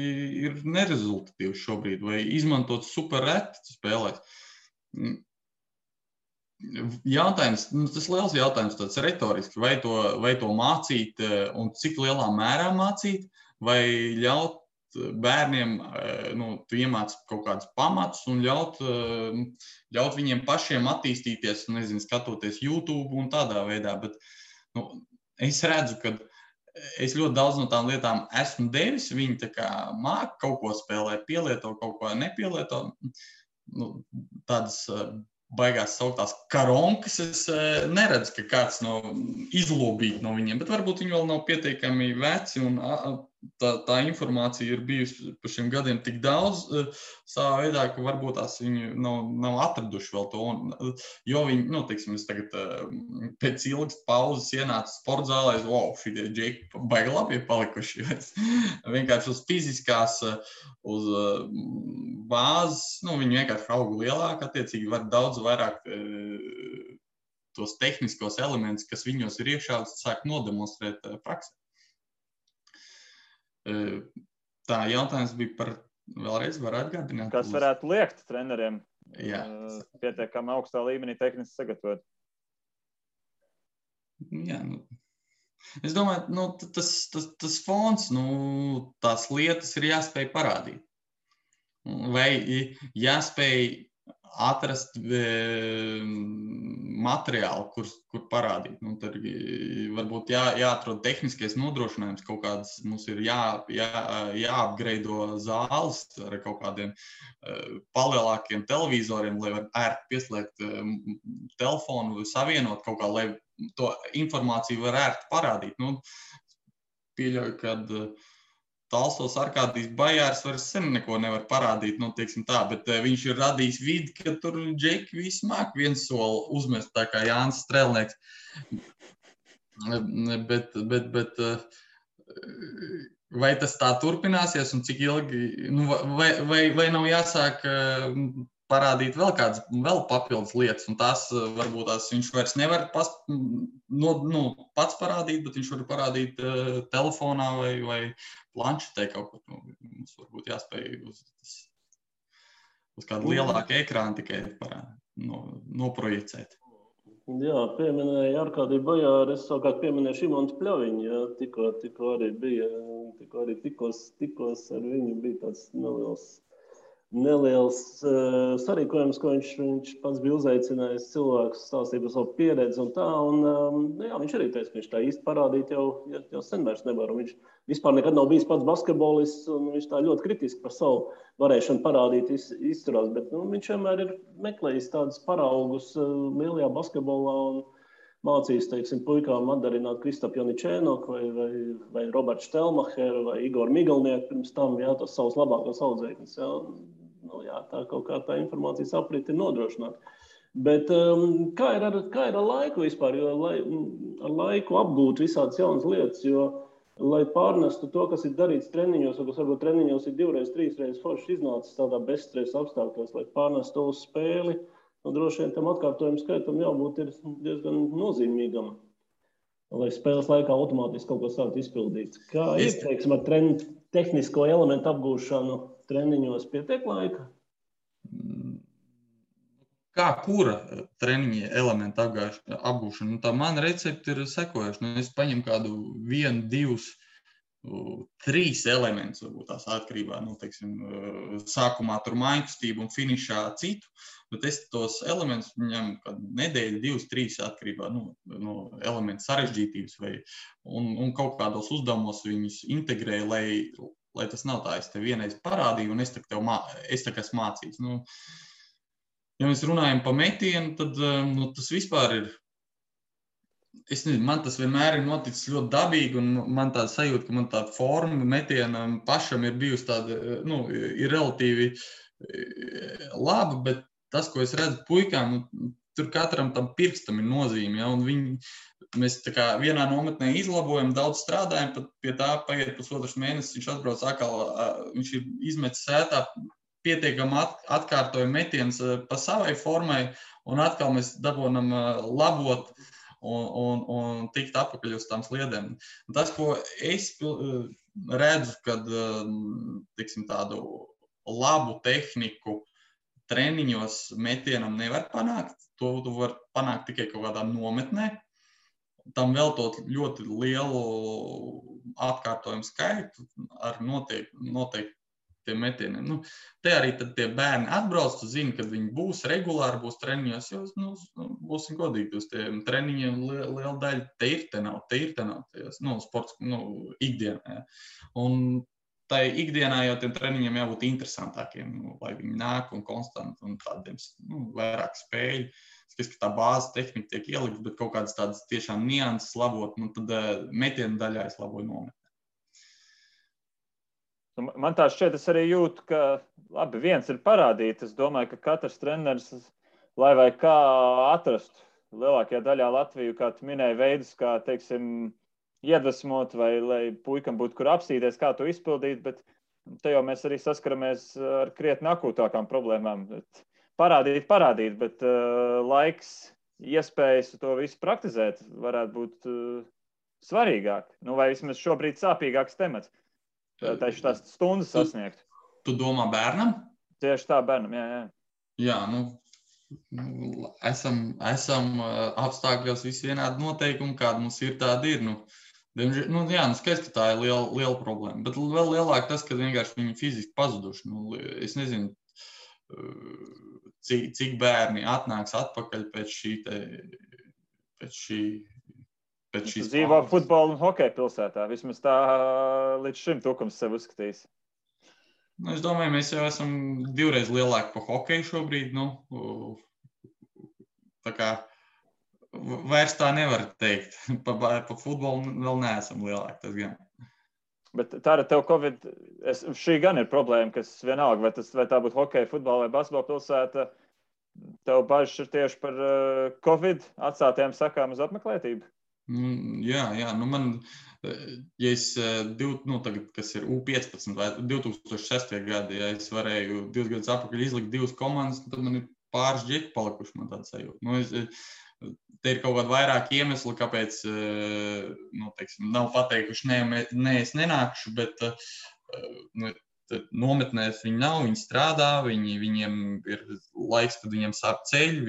Speaker 3: ir nerezultatīvs šobrīd, vai izmantot super reti spēlēs. Jautājums, tas liels jautājums, tāds retoriski, vai to mācīt un cik lielā mērā mācīt, vai ļaut bērniem, tu iemāc kaut kādus pamatus un ļaut viņiem pašiem attīstīties, skatoties YouTube un tādā veidā, bet es redzu, ka es ļoti daudz no tām lietām esmu devis, viņi tā kā māk kaut ko spēlē, pielieto, kaut ko nepielieto, tādas baigās sauktās karonkas, es neredzu, ka kāds izlobīt no viņiem, bet varbūt viņi vēl nav pietiekami veci un tā informācija ir bijusi par šiem gadiem tik daudz savā veidā, ka varbūt tās viņi nav atraduši vēl to. Jo viņi, teiksim, es tagad pēc ilgas pauzes ienācu sportzālē, šitie džeki baigi labi ir palikuši. Vienkārši uz fiziskās, uz bāzes, viņi vienkārši auga lielāk, attiecīgi var daudz vairāk tos tehniskos elementus, kas viņos ir iekšā, sāk nodemonstrēt praksē. Tā jautājums bija par, vēlreiz var atgādināt.
Speaker 1: Kas varētu liekt treneriem pietiekami augstā līmenī tehniski sagatavot?
Speaker 3: Jā, es domāju, tas fons, tās lietas ir jāspēj parādīt. Vai jāspēj atrast materiālu, kur parādīt. Tad varbūt jāatrod tehniskais nodrošinājums, kaut kādas mums ir jāapgreido zāles ar kaut kādiem palielākiem televizoriem, lai var ērti pieslēgt telefonu vai savienot kaut kā, lai to informāciju var ērti parādīt. Pieļauju, kad Talsos Arkādijs Bajārs vairs sen neko nevar parādīt, teiksim tā, bet viņš ir radījis vidi, ka tur džeki visi māk viens soli uzmest, tā kā Jānis Strelnieks. Bet vai tas tā turpināsies un cik ilgi, nu, vai nav jāsāk parādīt vēl papildus lietas, un tās varbūt viņš vairs nevar pats parādīt, bet viņš var parādīt telefonā vai planšetē kaut ko. Mums varbūt jāspēj uz kādu lielāku ekrānu tikai noprojicēt.
Speaker 2: Jā, pieminēja Arkādiju Bajāru, es savukārt pieminēju Šimontu Pļaviņu, jā, tikko arī bija, tikos ar viņu bija tāds neliels sarīkojums, ko viņš pats bija uzaicinājis cilvēkus stāstīt par savu pieredzi un tā, un jā, viņš arī teica, ka viņš tā īsti parādīt jau sen vairs nevar, un viņš vispār nekad nav bijis pats basketbolists, un viņš tā ļoti kritiski par savu varēšanu parādīt izturās, bet viņš vienmēr ir meklējis tādus paraugus lielajā basketbolā un mācījis, teiksim, puikām atdarināt Kristapu Janičēnoku vai Robertu Štelmacheru vai Igoru Migalnieku pirms tam, jā, tos savus labākos audzēkņus, jā. Jā, tā kaut kā tā informācijas aprite ir nodrošināta. Bet kā ir ar laiku vispār, jo ar laiku apgūt visādas jaunas lietas, jo, lai pārnestu to, kas ir darīts treniņos, vai kas varbūt treniņos ir 2, 3 forši iznācis tādā bezstresa apstākļos, lai pārnestu to uz spēli, droši vien tam atkārtojumu skaitam jābūt ir diezgan nozīmīgam, lai spēles laikā automātiski kaut ko sākt izpildīt. Kā ir, teiksim, ar tehnisko elementu apgūšanu treniņos pietiek laika?
Speaker 3: Kā kura treniņa elementa apgūšana? Nu, tā mana recepte ir sekojoša. Es paņemu kādu 1, 2, 3 elementus, varbūt tās atkarībā, teiksim, sākumā tur mājkustību un finišā citu, bet es tos elementus ņemu kādu nedēļu, 2, 3 atkarībā no elementu sarežģītības un kaut kādos uzdevumos viņus integrēju, lai tas nav tā, es tev vienreiz parādīju un es tā kā esmu mācīts. Ja mēs runājam par metienu, tad tas vispār ir, es nezinu, man tas vienmēr ir noticis ļoti dabīgi un man tāda sajūta, ka man tāda forma metienam pašam ir bijusi tāda, ir relatīvi laba, bet tas, ko es redzu puikām, tur katram tam pirkstam ir nozīme, ja, un mēs tā kā vienā nometnē izlabojam, daudz strādājam, pat pie tā paiet pusotrs mēnesis, viņš atbrauc atkal, viņš ir izmetis sētā, pietiekam atkārtoju metiens pa savai formai, un atkal mēs dabonam labot un tikt apakaļ uz tām sliedēm. Un tas, ko es redzu, kad, tiksim, tādu labu tehniku treniņos metienam nevar panākt, to tu var panākt tikai kaut kādā nometnē, tam veltot ļoti lielu atkārtojumu skaitu ar noteiktiem metieniem. Te arī tad tie bērni atbrauc, tu zini, kad viņi būs regulāri, būs treniņos, jo, būsim godīgi, uz tiem treniņiem liela daļa te ir, sports, ikdienā. Ja. Un tai ikdienā jau tiem treniņiem jābūt interesantākiem, lai viņi nāk un konstanti un tādiem vairāk spēļu. Es ka tā bāzes tehnika tiek ielikta, bet kaut kādas tādas tiešām nianses labot, tad metienu daļā es laboju nometnē.
Speaker 1: Man tā šķiet, es arī jūtu, ka labi, viens ir parādīt. Es domāju, ka katrs treneris, lai vai kā atrastu lielākajā daļā Latviju, kā tu minēji, veidus, kā, teiksim, iedvesmot vai lai puikam būtu kur apstīties, kā to izpildīt, bet te jau mēs arī saskaramies ar krietni akūtākām problēmām. Parādīt, bet laiks, iespējas to visu praktizēt varētu būt svarīgāk. Vai vismaz šobrīd sāpīgāks temats. Tieši tās stundas sasniegt.
Speaker 3: Tu domā bērnam?
Speaker 1: Tieši tā, bērnam, jā.
Speaker 3: Jā, esam apstākļos visi vienādi noteikumi, kāda mums ir, tāda ir. Skaidrs, ka tā ir liela problēma, bet vēl lielāk tas, ka vienkārši viņi fiziski pazuduši. Es nezinu, cik bērni atnāks atpakaļ pēc šīs
Speaker 1: dzīvo futbola un hokeja pilsētā. Vismaz tā līdz šim tukums sev uzskatījis.
Speaker 3: Es domāju, mēs jau esam 2 reizes lielāki par hokeju šobrīd. Tā kā vairs tā nevar teikt. Pa futbolu vēl neesam lielāki, tas gan.
Speaker 1: Bet tā ar tev Covid, šī gan ir problēma, kas vienalga, vai tā būtu hokeja, futbola vai basketbola pilsēta, tev bažas ir tieši par Covid atstātajām sakām uz apmeklētību?
Speaker 3: Jā, man ja es, tagad, kas ir U15 vai 2006. Gadi, ja es varēju 2 gadus atpakaļ izlikt 2 komandas, tad man ir pāris džeki palikuši, man tāda sajūta. Te ir kaut kādi vairāki iemesli, kāpēc nav pateikuši, nē, es nenākšu, bet nometnēs viņi nav, viņi strādā, viņiem ir laiks, kad viņiem sāp ceļi,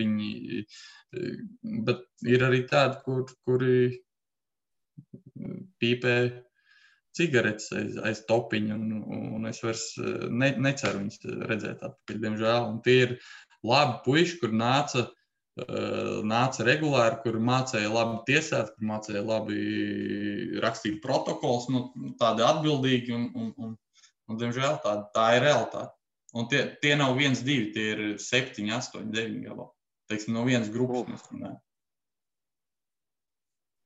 Speaker 3: bet ir arī tādi, kuri pīpē cigaretes aiz topiņa, un es vairs neceru viņus redzēt atpakaļ, diemžēl. Un tie ir labi puiši, kur nāca regulāri, kur mācēja labi tiesāt, kur mācēja labi rakstīt protokols, tādi atbildīgi, un diemžēl tā ir realitāte. Un tie nav 1, 2, tie ir 7, 8, 9 galā. Teiksim, no vienas grupas mēs runājam.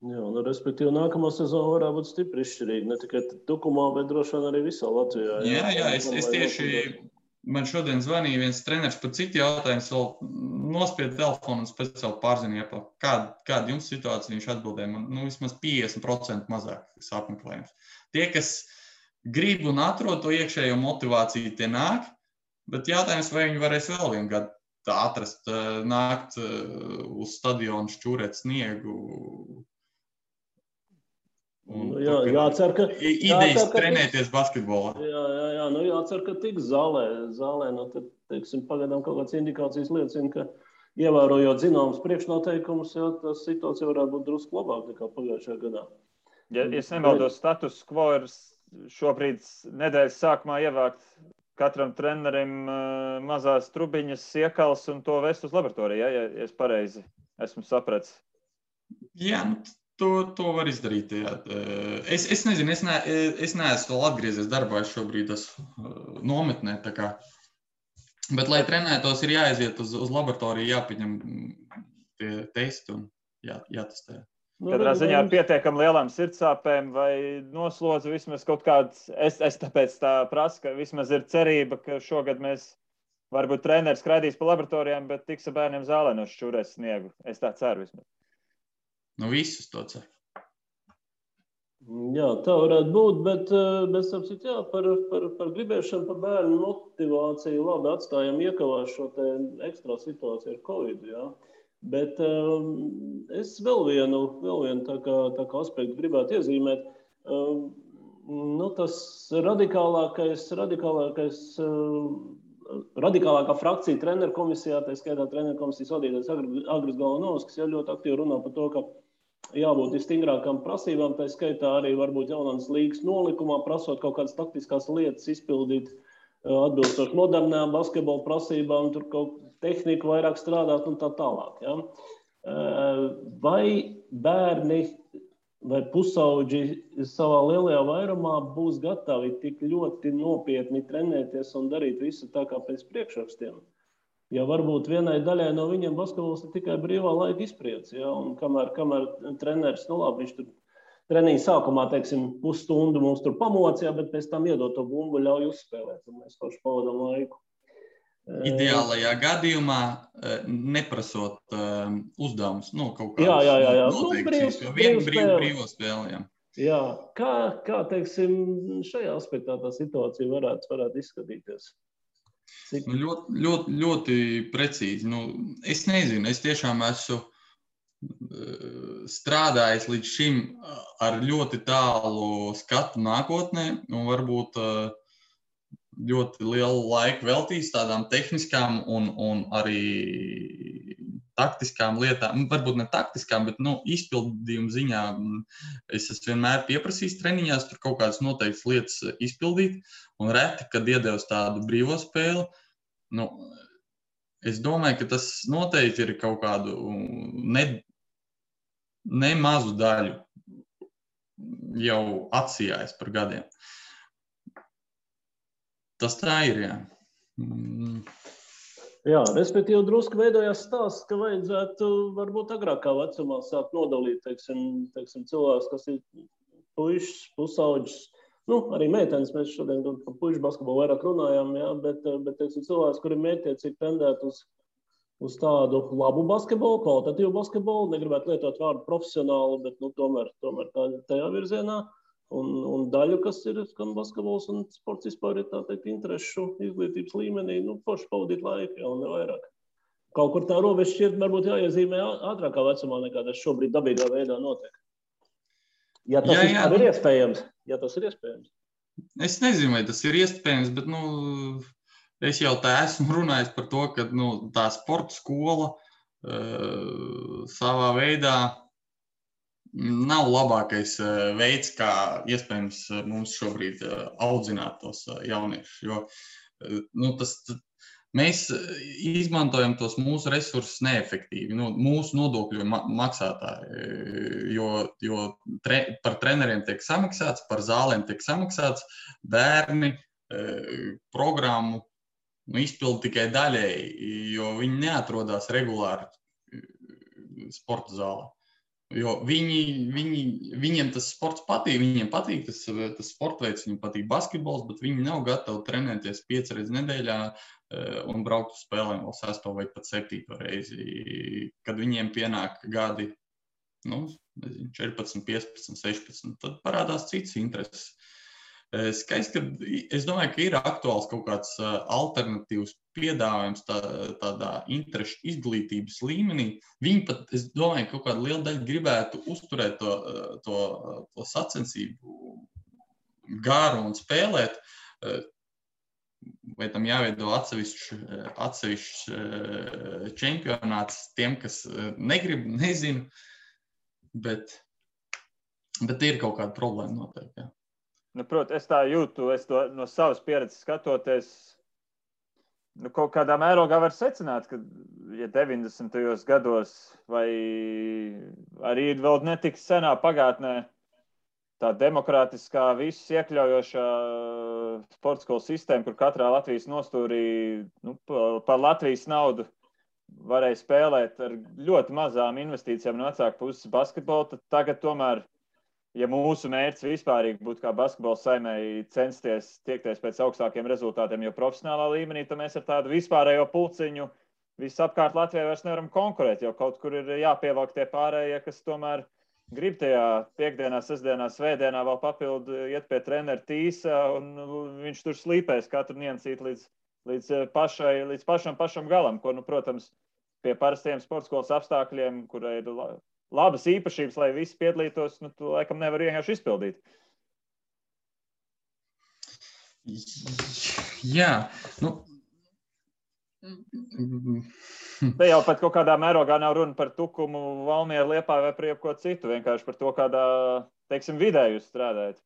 Speaker 2: Jā, respektīvi, nākamā sezona varētu būt stipri izšķirīga, ne tikai Tukumā, bet droši vien arī visā Latvijā.
Speaker 3: Jā, es tieši, man šodien zvanīja viens treneris par citu jautājumu, vēl nospied telefonu un pēc vēl pārzina, kāda jums situācija, viņš atbildēja, man vismaz 50% mazāk apmeklējums. Tie, kas grib un atrod to iekšējo motivāciju, tie nāk, bet jautājums, vai viņi varēs vēl vienu gadu atrast, nākt uz stadionu, šķūrēt sniegu.
Speaker 2: Jācer, ka
Speaker 3: idejas trenēties basketbolā.
Speaker 2: Jā, jācer, ka tiks zālē, tad, teiksim, pagaidām kaut kādas indikācijas liecina, ka ievērojot zināmas priekšnoteikumus, tā situācija varētu būt drusku labāk nekā pagājušajā gadā.
Speaker 1: Ja es nemaldos, status quo ir šobrīd nedēļas sākumā ievākt katram trenerim mazās trubiņas, iekals un to vest uz laboratoriju, ja es pareizi esmu sapratis. Jā,
Speaker 3: To var izdarīt. Jā. Es nezinu, es neesmu vēl atgriezies darbā, es šobrīd esmu nometnē. Bet, lai trenētos, ir jāaiziet uz laboratoriju, jāpieņem tie testi un jātestē.
Speaker 1: Katrā ziņā ar pietiekami lielām sirdsāpēm vai noslodzi vismaz kaut kāds, es tāpēc tā prasu, ka vismaz ir cerība, ka šogad mēs varbūt treneris skraidīs pa laboratorijām, bet tiks ar bērniem zālē no šķūrēs sniegu. Es tā ceru vismaz.
Speaker 3: Visus to cer.
Speaker 2: Jā, tā varētu būt, bet sapsit, jā, par gribēšanu, par bērnu motivāciju labi atstājam iekavās šo te ekstra situāciju ar Covid, jā. Bet es vēl vienu tā kā aspektu gribētu iezīmēt. Tas radikālākā frakcija treneru komisijā, tā skaitā treneru komisijas vadītājs Agris Galanovskis, ļoti aktīvi runā par to, ka jābūt stingrākām prasībām, tā skaitā arī varbūt jaunās līgas nolikumā, prasot kaut kādas taktiskās lietas izpildīt atbilstoši modernām basketbola prasībām, tur kaut tehniku vairāk strādāt un tā tālāk. Ja? Vai bērni vai pusauģi savā lielajā vairumā būs gatavi tik ļoti nopietni trenēties un darīt visu tā kā pēc priekšrakstiem? Ja varbūt vienai daļai no viņiem basketbols ir tikai brīvā laika izpriece, ja? Un kamēr treneris, viņš tur treniņa sākumā, teiksim, pusstundu mums tur pamocīja, bet pēc tam iedot to bumbu, ļauj uzspēlēt, un mēs paši pavadām laiku.
Speaker 3: Ideālajā gadījumā neprasot uzdevumus, kaut kādas noteikts, vienu brīvo spēli.
Speaker 2: Jā, kā teiksim, šajā aspektā tā situācija varētu izskatīties?
Speaker 3: Ļoti precīzi. Es nezinu, es tiešām esmu strādājis līdz šim ar ļoti tālu skatu nākotnē un varbūt ļoti lielu laiku veltījis tādām tehniskām un arī taktiskām lietām. Varbūt ne taktiskām, bet izpildījuma ziņā es esmu vienmēr pieprasījis treniņās tur kaut kādas noteiktas lietas izpildīt un reti, kad iedevis tādu brīvo spēli. Es domāju, ka tas noteikti ir kaut kādu nemazu daļu jau atsijājis par gadiem. Tas tā ir, jā.
Speaker 2: Jā, respektīvi drusku veidojās stāsts, ka vajadzētu varbūt agrākā vecumā sākt nodalīt, teiksim, cilvēks, kas ir puišs, pusauģis, arī meitenes, mēs šodien par puišu basketbolu vairāk runājām, jā, bet teiksim, cilvēks, kuri mērķiecīgi tendēt uz tādu labu basketbolu, kvalitatīvu basketbolu, negribētu lietot vārdu profesionālu, bet tomēr tajā virzienā. Un daļu, kas ir gan basketbols un sports vispār ir tā teikt interešu izglītības līmenī, forši pavadīt laiku, ja, un ne vairāk. Kaut kur tā robeža šķiet varbūt jāiezīmē ātrākā vecumā, nekā tas šobrīd dabīgā veidā notiek. Ja tas vispār ir iespējams. Ja tas ir iespējams.
Speaker 3: Es nezinu, vai tas ir iespējams, bet es jau tā esmu runājis par to, ka tā sporta skola savā veidā nav labākais veids, kā iespējams mums šobrīd audzināt tos jauniešus. Jo mēs izmantojam tos mūsu resursus neefektīvi, mūsu nodokļu maksātāji, jo par treneriem tiek samaksāts, par zālēm tiek samaksāts, bērni programmu izpilda tikai daļēji, jo viņi neatrodās regulāri sporta zālē. Jo viņiem tas sports patīk, viņiem patīk tas sporta veids, viņiem patīk basketbols, bet viņi nav gatavi trenēties 5 reizes nedēļā un braukt uz spēlēm vēl 6. vai pat 7. reizi. Kad viņiem pienāk gadi 14, 15, 16, tad parādās cits intereses. Skaisti, ka es domāju, ka ir aktuāls kaut kāds alternatīvs piedāvājums tādā interešu izglītības līmenī. Viņi pat, es domāju, kaut kādu lielu daļu gribētu uzturēt to sacensību garu un spēlēt. Vai tam jāveido atsevišķs čempionāts tiem, kas negrib, nezinu, bet ir kaut kāda problēma noteikti, jā.
Speaker 1: Protams, es tā jūtu, es to no savas pieredzes skatoties, kaut kādā mērogā var secināt, ka, ja 90. gados vai arī vēl netik senā pagātnē tā demokrātiskā, visus iekļaujošā sporta skolu sistēma, kur katrā Latvijas nostūrī par Latvijas naudu varēja spēlēt ar ļoti mazām investīcijām no vecāku puses basketbolu, tad tagad tomēr, ja mūsu mērķis vispārīgi būtu kā basketbola saimēji censties tiekties pēc augstākiem rezultātiem, jo profesionālā līmenī, tad mēs ar tādu vispārējo pulciņu visapkārt Latvijā vairs nevaram konkurēt, jo kaut kur ir jāpievelk tie pārējie, kas tomēr grib tajā piekdienā, sestdienā, svētdienā vēl papildu iet pie trenera tīsa, un viņš tur slīpēs katru niansīt līdz pašam galam, ko, protams, pie parastiem sportskolas apstākļiem, kurai ir labas īpašības, lai visi piedalītos, tu laikam nevar vienkārši izpildīt.
Speaker 3: Jā,
Speaker 1: Te jau pat kaut kādā mērogā nav runa par Tukumu, Valmieru, Liepāju vai par jebko citu, vienkārši par to, kādā, teiksim, vidē jūs strādājat.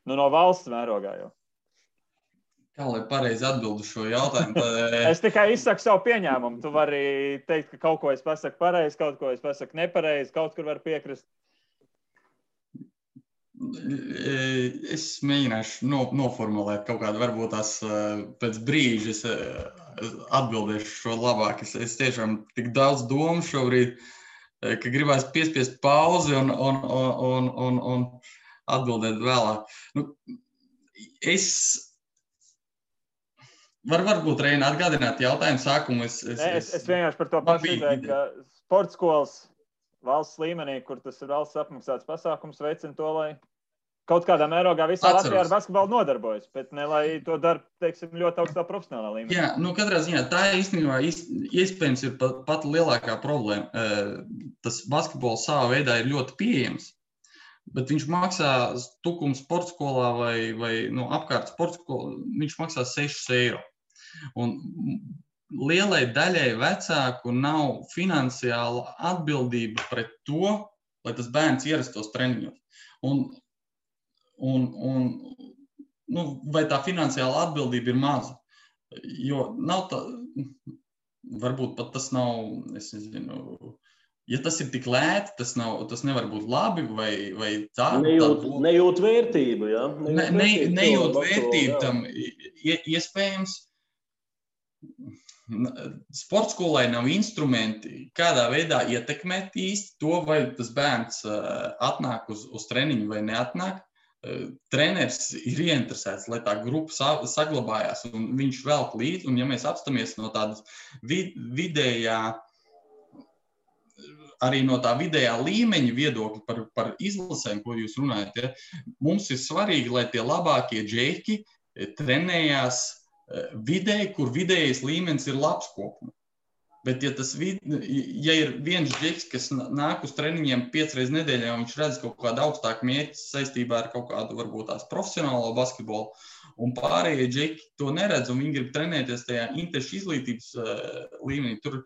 Speaker 1: No valsts mērogā jau.
Speaker 3: Kā lai pareizi atbildu šo jautājumu?
Speaker 1: Es tikai izsaku savu pieņēmumu. Tu vari teikt, ka kaut ko es pasaku pareizi, kaut ko es pasaku nepareizi, kaut kur var piekrist.
Speaker 3: Es mēģināšu noformulēt kaut kādu, varbūt tās pēc brīža es atbildēšu šo labāk. Es tiešām tik daudz domu šobrīd, ka gribās piespiest pauzi un atbildēt vēlāk. Varbūt, Reina, atgādināt jautājumu sākumu. Es
Speaker 1: vienkārši par to pašu ideju, ka sporta skolas valsts līmenī, kur tas ir valsts apmaksāts pasākums, veicina to, lai kaut kādā mērogā visā Latvijā ar basketbolu nodarbojas, bet ne lai to dara, teiksim, ļoti augstā profesionālā līmenī.
Speaker 3: Jā, katrā ziņā tā īstenībā iespējams ir pat lielākā problēma. Tas basketbols savā veidā ir ļoti pieejams, bet viņš maksā Tukuma sporta skolā vai apkārt sporta skolā, viņš maksā 6 eiro. Un lielai daļai vecāku nav finansiāla atbildība pret to, lai tas bērns ierastos treniņos. Vai tā finansiāla atbildība ir maza? Jo nav tā, varbūt pat tas nav, es nezinu, ja tas ir tik lēti, tas nevar būt labi vai tā.
Speaker 2: Nejūt vērtību, jā?
Speaker 3: Nejūt vērtību tam iespējams. Sporta skolai nav instrumenti, kādā veidā ietekmēt īsti to, vai tas bērns atnāk uz treniņu vai neatnāk. Treneris ir ieinteresēts, lai tā grupa saglabājās, un viņš velk līdzi, un ja mēs apstamies no tādas vidējā arī no tā vidējā līmeņa viedokļa par izlasēm, ko jūs runājat, ja, mums ir svarīgi, lai tie labākie džeki trenējās vidē, kur vidējais līmenis ir labs kopumā. Bet, ja ir viens džeks, kas nāk uz treniņiem 5 reizes nedēļā, un viņš redz kaut kādu augstāku mērķi saistībā ar kaut kādu, varbūt tās profesionālo basketbolu, un pārējie džeki to neredz, un viņi grib trenēties tajā interešu izglītības līmenī, tur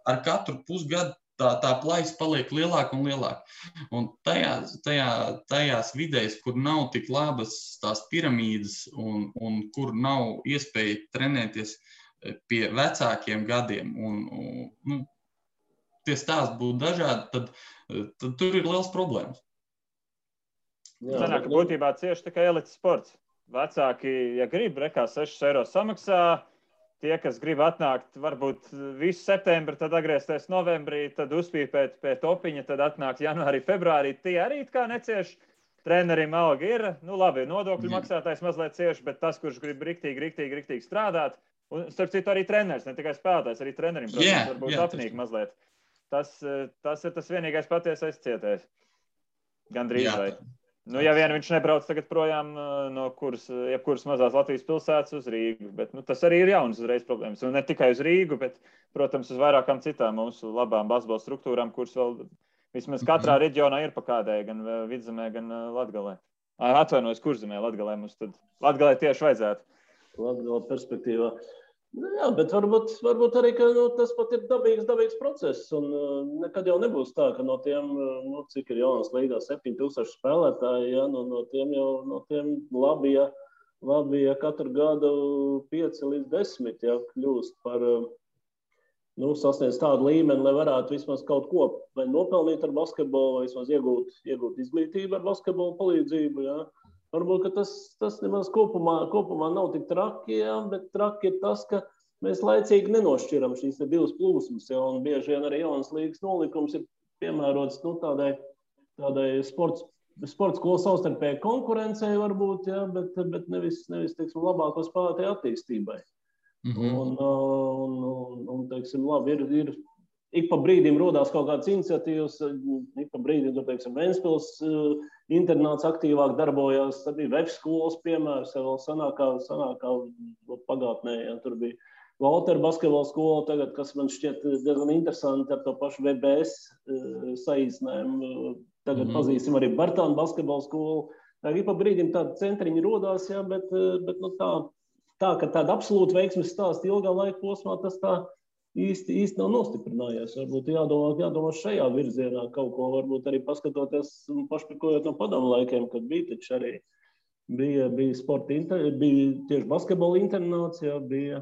Speaker 3: ar katru pusgadu tā plaisa paliek lielāka un lielāka. Un tajās vidēs, kur nav tik labas tās piramīdas un kur nav iespēja trenēties pie vecākiem gadiem, un tie stāsti būtu dažādi, tad tur ir liels problēmas.
Speaker 1: Sanāk, ka būtībā cieši tikai elites sports. Vecāki, ja grib, rekā 6 eiro samaksā, tie, kas grib atnākt, varbūt visu septembri, tad atgriezties novembrī, tad uzpīpēt pie topiņa, tad atnākt janvārī, februārī, tie arī kā necieš. Trenerim alga ir, labi, nodokļu maksātājs mazliet cieši, bet tas, kurš grib riktīgi strādāt, un starp citu arī treneris, ne tikai spēlētājs, arī trenerim, protams, varbūt apnīk mazliet. Tas ir tas vienīgais patiesais cietējs. Gandrīz vai. Ja vien viņš nebrauc tagad projām no jebkuras mazās Latvijas pilsētas uz Rīgu, bet tas arī ir jauns uzreiz problēmas. Un ne tikai uz Rīgu, bet, protams, uz vairākām citām mūsu labām basketbola struktūrām, kuras vēl vismaz katrā reģionā ir pa kādai, gan Vidzemē, gan Latgalē. Atvainojos, Kurzemē, Latgalē mums tad. Latgalē tieši vajadzētu.
Speaker 2: Latgala perspektīvā. Jā, bet varbūt arī, ka tas pat ir dabīgs process, un nekad jau nebūs tā, ka no tiem, cik ir jaunas līgā 7000 spēlētāji, ja, no tiem labi, ja katru gadu 5 līdz 10, ja, kļūst par, sasniedz tādu līmeni, lai varētu vismaz kaut ko vai nopelnīt ar basketbolu, vai vismaz iegūt izglītību ar basketbolu palīdzību, ja. Varbūt, ka tas nemaz kopumā nav tik traki, ja, bet traki ir tas, ka mēs laicīgi nenošķiram šīs divas plūsmas, ja, un bieži vien arī jaunas līgas nolikums ir piemērots tādai sports skolu savstarpēji konkurencei varbūt, ja, bet nevis teiksim, labāko spēlētāju attīstībai. Un teiksim, labi, ir ik pa brīdim rodās kaut kādas iniciatīvas, ik pa brīdim, teiksim, Ventspils internāts aktīvāk darbojās, tad bija Vefs skolas piemērs, ja vēl sanākā pagātnē, ja, tur bija Valtera basketbola skola tagad, kas man šķiet diezgan interesanti ar to pašu VBS saīsinājumu. Tagad pazīstam arī Bartāna basketbola skolu. Ik pa brīdim tādi centriņi rodās, ja, bet tā, ka tāda absolūta veiksmes stāsta ilgā laika posmā, tas tā īsti nav nostiprinājies. Varbūt jādomā šajā virzienā kaut ko, varbūt arī paskatoties un pašpirkojot no padomu laikiem, kad bija taču arī bija tieši basketbola internāts, ja, bija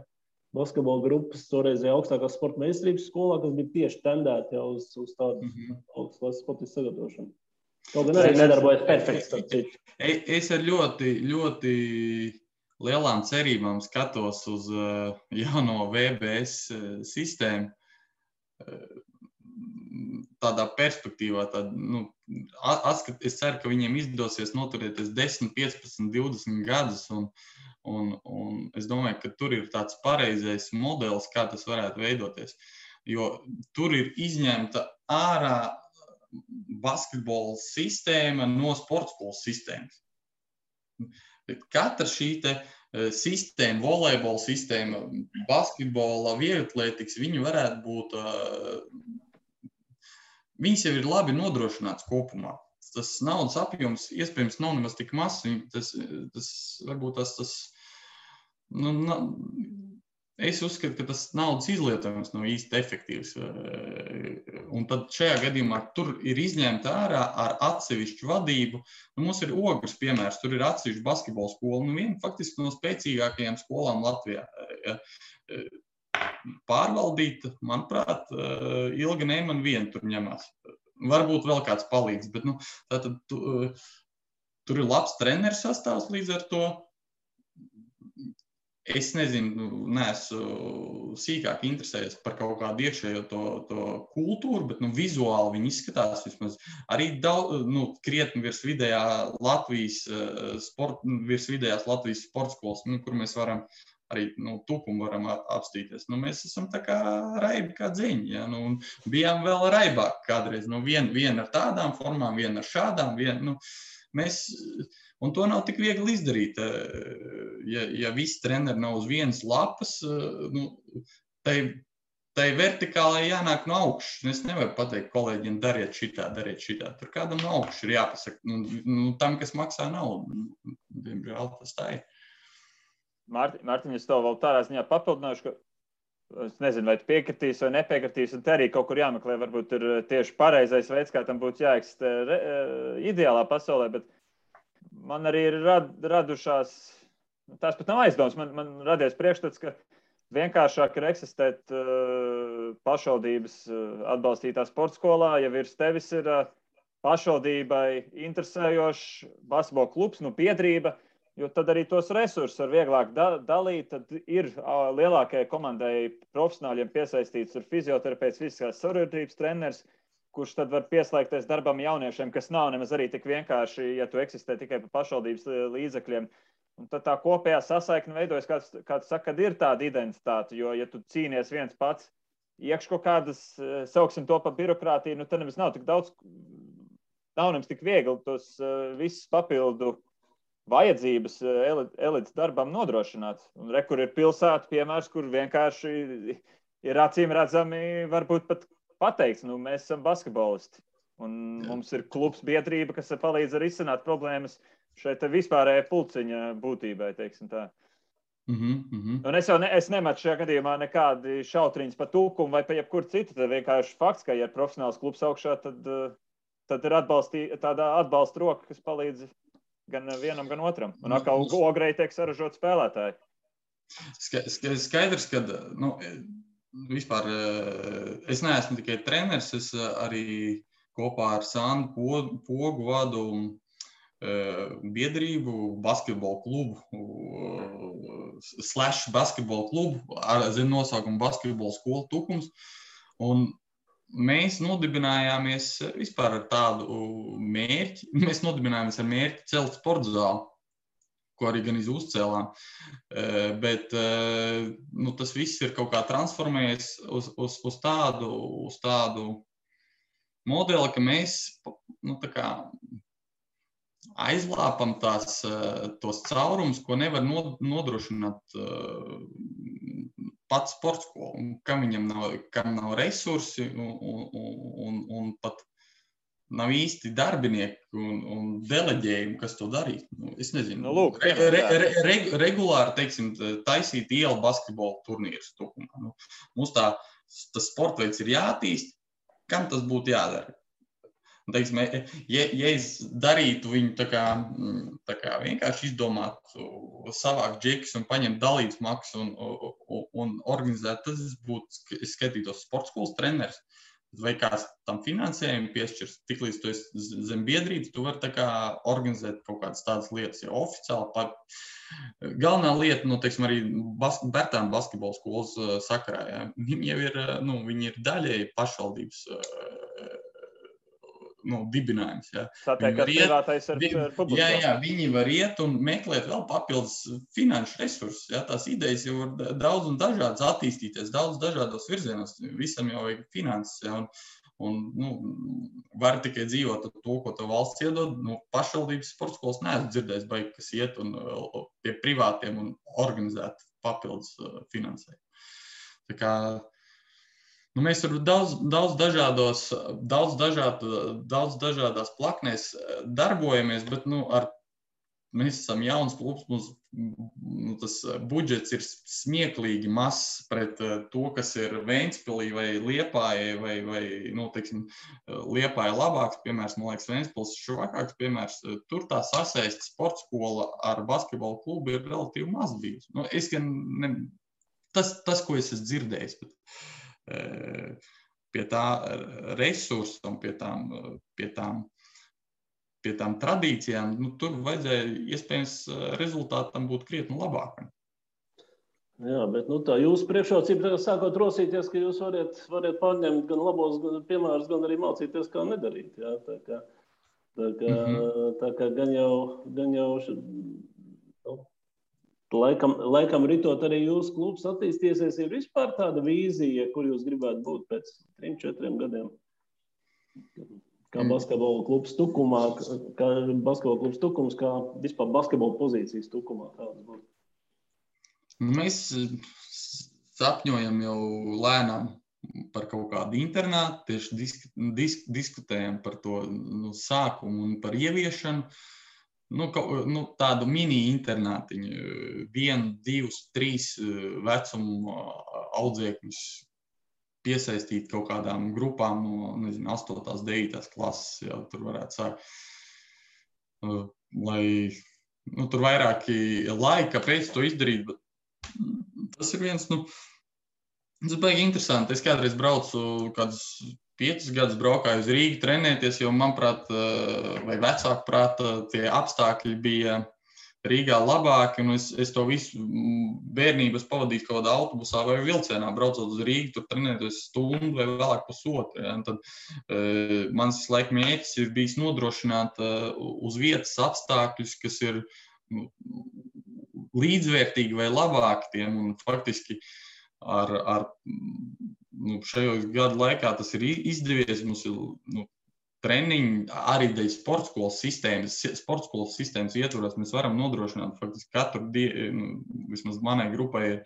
Speaker 2: basketbola grupas toreizajā augstākās sporta meistarības skolā, kas bija tieši tendēti jau uz tādu augstas sportistu sagatavošanu. Kaut gan arī nedarbojas perfekti.
Speaker 3: Es ar ļoti lielām cerībām skatos uz jauno VBS sistēmu. Tādā perspektīvā, es ceru, ka viņiem izdosies noturēties 10, 15, 20 gadus, un es domāju, ka tur ir tāds pareizais modelis, kā tas varētu veidoties. Jo tur ir izņemta ārā basketbola sistēma no sportskolas sistēmas. Katra šī sistēma, volejbola sistēma, basketbola, vieglatlētikas, viņi varētu būt, viņas jau ir labi nodrošināts kopumā. Tas naudas apjoms iespējams nav nemaz tik mazs, tas varbūt es uzskatu, ka tas naudas izlietojums nav īsti efektīvs. Un tad šajā gadījumā tur ir izņemta ārā ar atsevišķu vadību. Mums ir Ogres piemērs, tur ir atsevišķa basketbola skola, viena faktiski no spēcīgākajām skolām Latvijā. Pārvaldīta, manuprāt, Ilga Neiman viena tur ņemās. Varbūt vēl kāds palīdz, bet tātad tur ir labs treneris sastāvs līdz ar to. Es nezinu, neesmu sīkāk interesējies par kaut kādu iekšējo to kultūru, bet vizuāli viņi izskatās vismaz arī krietni virs vidējās Latvijas sporta skolas, kur mēs varam arī tukumu varam apstīties. Mēs esam tā kā raibi kā dziņi, ja? Un bijām vēl raibāk kādreiz. Viena ar tādām formām, viena ar šādām, un to nav tik viegli izdarīt. Ja visi treneri nav uz vienas lapas, tai vertikālai jānāk no augšas. Es nevaru pateikt kolēģiem, dariet šitā. Tur kādam no augšas ir jāpasaka. Tam, kas maksā naudu. Diemžēl tas tā ir.
Speaker 1: Mārtiņ, es tev vēl tādā ziņā papildināšu, ka es nezinu, vai tu piekritīs vai nepiekritīs, un te arī kaut kur jāmeklē, varbūt ir tieši pareizais veids, kā tam būtu jāeksistē ideālā pasaulē, bet man arī ir radušās, tās pat nav aizdomas, man radies priekšstats, ka vienkāršāk ir eksistēt pašvaldības atbalstītā sporta skolā, ja virs tevis ir pašvaldībai interesējošs basketbola klubs, biedrība, jo tad arī tos resursus var vieglāk dalīt, tad ir lielākajai komandai profesionāļiem piesaistīts ir fizioterapeits, fiziskās savienotības treneris, kurš tad var pieslēgties darbam jauniešiem, kas nav nemaz arī tik vienkārši, ja tu eksistē tikai pa pašvaldības līdzekļiem. Un tad tā kopējā sasaikne veidojas, kā tu saki, kad ir tāda identitāte, jo, ja tu cīnies viens pats, iekš kaut kādas, sauksim to pa birokrātiju, tad nemaz nav tik daudz, nav nemaz tik viegli tos visus papildu vajadzības elites darbam nodrošināt. Un kur ir pilsēta piemērs, kur vienkārši ir acīm redzami, varbūt pat pateikts, mēs esam basketbolisti. Un mums ir klubs biedrība, kas palīdz arī izsināt problēmas šeit vispārējai pulciņa būtībai, teiksim tā. Un es nematu šajā gadījumā nekādi šautriņas pa tukumu vai pa jebkur citu. Tad vienkārši fakts, ka ja ir profesionāls klubs augšā, tad ir tāda atbalsta roka, kas palīdz gan vienam, gan otram. Un atkal Ogrei tiek saražot spēlētāji.
Speaker 3: Skaidrs, ka vispār es neesmu tikai treneris, es arī kopā ar Sandu Pogu vadu biedrību, basketbola klubu, /basketbola klubu, ar zem nosaukumu basketbola skola Tukums. Un mēs nodibinājāmies vispār ar tādu mērķi. Mēs nodibinājāmies ar mērķi celt sporta zāli, ko arī gan uzcēlām. Bet tas viss ir kaut kā transformējies uz tādu modeli, ka mēs tā kā aizlāpam tos caurumus, ko nevar nodrošināt pats sports skola, kam nav resursi un pat nav īsti darbinieki un deleģējumi, kas to darīt. Es nezinu, regulāri, teiksim, taisīt ielu basketbola turnīrus Tukumā. Mums tas sporta veids ir jātīst, kam tas būtu jādara? Teiksim, ja es darītu viņu tā kā vienkārši izdomātu, savākt džekus un paņemt dalītas maksas un organizēt, tad es būtu skatītos sporta skolas treneris. Vai kāds tam finansējumu piešķirs, tiklīdz tu esi zem biedrības, tu vari tā kā organizēt kaut kādas tādas lietas, jo oficiāli galvenā lieta, teiksim, arī Bērtānu basketbola skolas sakarā, ja, viņi jau ir, viņi ir daļēji pašvaldības dibinājums. Ja.
Speaker 1: Tātad, ka privātais ar publisko.
Speaker 3: Jā, viņi var iet un meklēt vēl papildus finanšu resursus. Ja. Tās idejas jau var daudz un dažādas attīstīties, daudz dažādos virzienos. Visam jau vajag finanses. Ja. Un var tikai dzīvot ar to, ko tev valsts iedod. Pašvaldības sporta skolas neesmu dzirdējis, kas iet un pie privātiem un organizēt papildus finansējumu. Tā kā mēs tur daudz dažādās plaknēs darbojamies, bet mēs esam jauns klubs, mums tas budžets ir smieklīgi mazs pret to, kas ir Ventspilī vai Liepājai, vai teiksim, Liepāja labāks piemērs, man liekas, Ventspils švakāks piemērs. Tur tā sasaiste sporta skola ar basketbola klubu ir relatīvi maz bijusi. Tas, ko es esmu dzirdējis, bet pie tā resursa un pie tām tradīcijām, tur vajadzēja iespējams rezultātam būt krietni labākam.
Speaker 2: Jā, bet tā jūsu priekšrocība sākot rosīties, ka jūs variet pārņemt gan labos piemērus, gan arī mācīties, kā nedarīt. Jā, tā kā gan jau Laikam ritot arī jūsu klubs attīstīsies, ir vispār tāda vīzija, kur jūs gribētu būt pēc 3-4 gadiem? Kā basketbola klubs Tukumā, kā vispār basketbola pozīcijas Tukumā kādas būtu?
Speaker 3: Mēs sapņojam jau lēnām par kaut kādu internātu, tieši diskutējam par to sākumu un par ieviešanu. Tādu mini-internātiņu, 1, 2, 3 vecumu audzēkņus piesaistīt kaut kādām grupām no, 8. 9. klases, jau tur varētu sākt. Lai, tur vairāki laika, kāpēc to izdarīt, bet tas ir viens, tas baigi interesanti. Es kādreiz braucu kādus 5 gadus braukāju uz Rīgu trenēties, jo, manuprāt, vai vecāku prāta, tie apstākļi bija Rīgā labāki, un es to visu bērnības pavadīju kaut kādā autobusā vai vilcienā, braucot uz Rīgu, tur trenēties stundu vai vēlāk pusotru. Ja? Tad mans laika mērķis ir bijis nodrošināt uz vietas apstākļus, kas ir līdzvērtīgi vai labāki tiem, un faktiski ar šajos gadu laikā tas ir izdevies. Mums ir treniņi arī dēļ sportskolas sistēmas ietvaros. Mēs varam nodrošināt faktiski katru dienu, vismaz manai grupai ir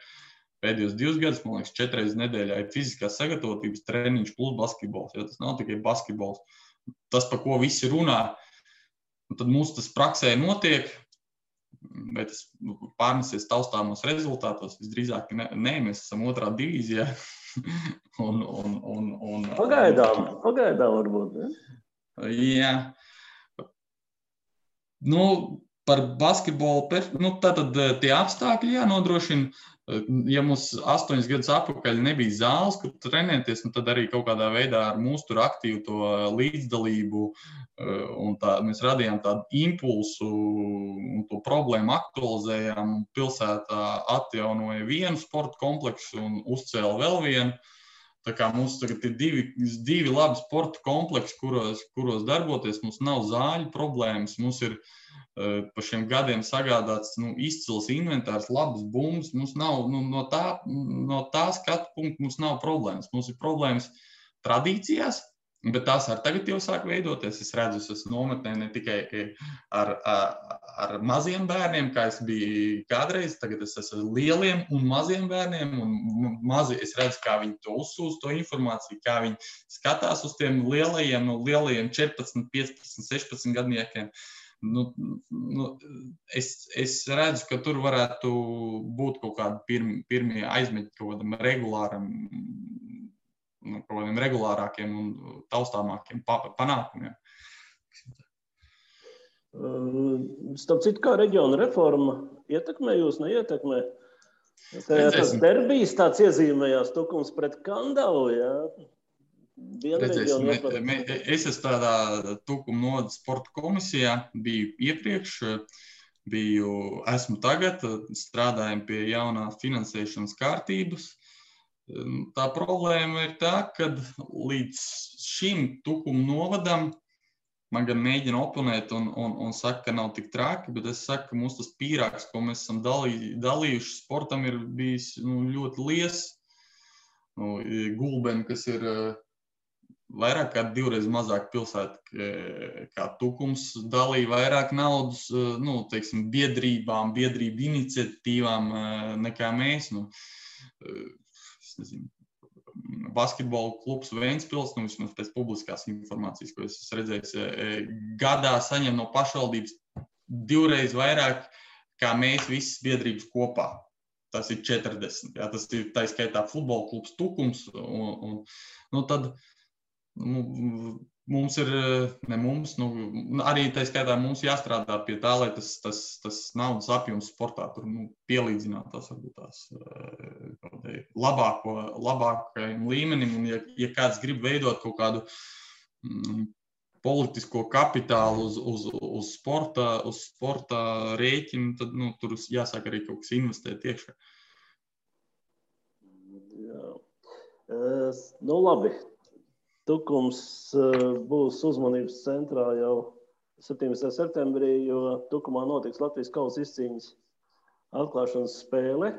Speaker 3: pēdējos 2 gadus, man liekas, 4 reizes nedēļā ir fiziskās sagatavotības treniņš plus basketbols. Ja? Tas nav tikai basketbols. Tas, par ko visi runā, tad mums tas praksē notiek, bet tas pārnesies taustāmos rezultātos. Visdrīzāk nē, mēs esam 2. divīzijā.
Speaker 2: Pagaidām varbūt, ne?
Speaker 3: Jā. Par basketbolu, tātad tie apstākļi jānodrošina. Ja mums 8 gadus atpakaļ nebija zāles, kur trenēties, tad arī kaut kādā veidā ar mūsu tur aktīvu to līdzdalību un mēs radījām tādu impulsu un to problēmu aktualizējām. Pilsētā atjaunoja vienu sporta kompleksu un uzcēla vēl vienu. Tā kā mums tagad ir divi labi sporta kompleksi, kuros darboties. Mums nav zāļu problēmas, mums ir pa šiem gadiem sagādāts izcils inventārs, labas bumbas. Mums nav, no tā skatu punkta mums nav problēmas. Mums ir problēmas tradīcijās, bet tās arī tagad jau sāk veidoties. Es redzu, es esmu nometnē ne tikai ar maziem bērniem, kā es biju kādreiz, tagad es esmu ar lieliem un maziem bērniem, un es redzu, kā viņi to uzsūs, to informāciju, kā viņi skatās uz tiem lielajiem, 14, 15, 16 gadniekiem. Es redzu, ka tur varētu būt kaut kādi pirmie aizmeļi kaut kādiem regulārākiem un taustāmākiem panākumiem.
Speaker 2: Starp citu, kā reģiona reforma ietekmē jūs, neietekmē? Tas derbijs tāds iezīmējās, Tukums pret Kandavu, jā?
Speaker 3: Es esmu tādā Tukuma novada sporta komisijā, biju iepriekš, esmu tagad, strādājam pie jaunās finansēšanas kārtības. Tā problēma ir tā, ka līdz šim Tukuma novadam man gan mēģina oponēt un saka, ka nav tik traki, bet es saku, ka mums tas pīrāks, ko mēs esam dalījuši sportam, ir bijis ļoti liels. Gulbeni, kas ir vairāk kā 2 reizes mazāk pilsēta kā Tukums, dalīja vairāk naudas, teiksim, biedrību iniciatīvām nekā mēs. Es nezinu. Basketbola klubs Ventspils, vismaz pēc publiskās informācijas, ko es esmu redzējis, gadā saņem no pašvaldības 2 reizes vairāk, kā mēs visas biedrības kopā. Tas ir 40. Jā, tas ir tā skaitā futbola klubs Tukums. Tad mums ir, arī tā skaitā mums jāstrādā pie tā, lai tas naudas apjoms sportā tur pielīdzināt tās varbūt tās labākajam līmenim. Un ja kāds grib veidot kaut kādu politisko kapitālu uz sporta rēķinu, tad tur jāsāk arī kaut kas investēt iekšā.
Speaker 2: Jā. Labi. Tukums būs uzmanības centrā jau 17. septembrī, jo Tukumā notiks Latvijas kausa izcīņas atklāšanas spēle.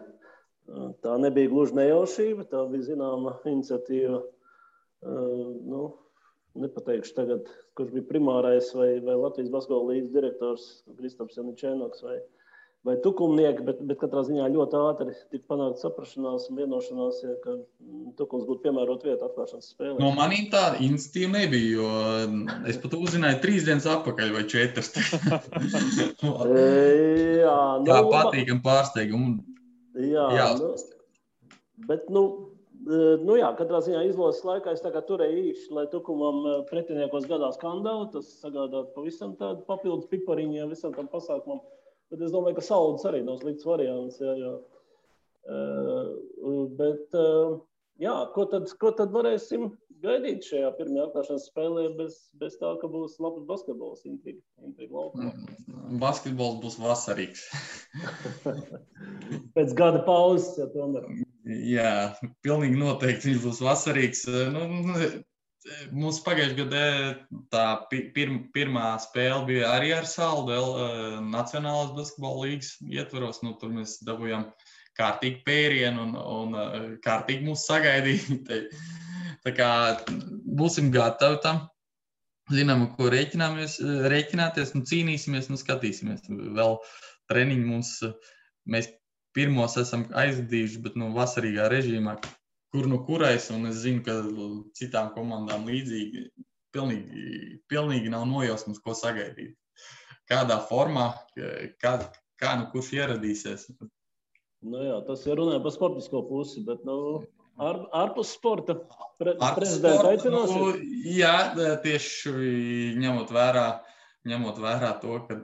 Speaker 2: Tā nebija gluži nejaušība, tā bija zināma iniciatīva. Nepateikšu tagad, kurš bija primārais vai Latvijas basketbola līgas direktors Kristaps Janičēnoks vai Tukumnieki, bet katrā ziņā ļoti ātri tika panākt saprašanās un vienošanās, ka Tukums būtu piemērot vietu atklāšanas spēlē.
Speaker 3: No manīm tāda iniciatīva nebija, jo es pat uzzināju 3 dienas atpakaļ vai 4. Tā patīkam pārsteigumu.
Speaker 2: Jā. Bet, katrā ziņā izlases laikā es tā kā turēju īši, lai Tukumam pretiniekos gadās skandāli, tas sagādāt pavisam tādu papildus pipariņiem visam tam pasākumam. Bet es domāju, ka Saudas arī nav slikts variants. Jā. Ko tad varēsim gaidīt šajā pirmajā atklāšanas spēlē bez tā, ka būs labs basketbols intriga laukumā?
Speaker 3: Basketbols būs vasarīgs.
Speaker 2: Pēc gada pauzes, ja tomēr.
Speaker 3: Jā, pilnīgi noteikti viņš būs vasarīgs. Mums pagājušajā gadā tā pirmā spēle bija arī ar Saldelu Nacionālās basketbola līgas ietvaros. Tur mēs dabūjām kārtīgi pērienu un kārtīgi mūs sagaidīja. Tā kā būsim gatavi tam. Zinām, ko rēķināties, cīnīsimies, skatīsimies. Vēl treniņi mēs pirmos esam aizvadījuši, bet vasarīgā režīmā, kur kurais, un es zinu, ka citām komandām līdzīgi pilnīgi nav nojausmas, ko sagaidīt. Kādā formā, kā kurš ieradīsies.
Speaker 2: Tas ir runāja par sportisko pusi, bet ārpus sporta prezidenta aicinās?
Speaker 3: Jā, tieši ņemot vērā to, ka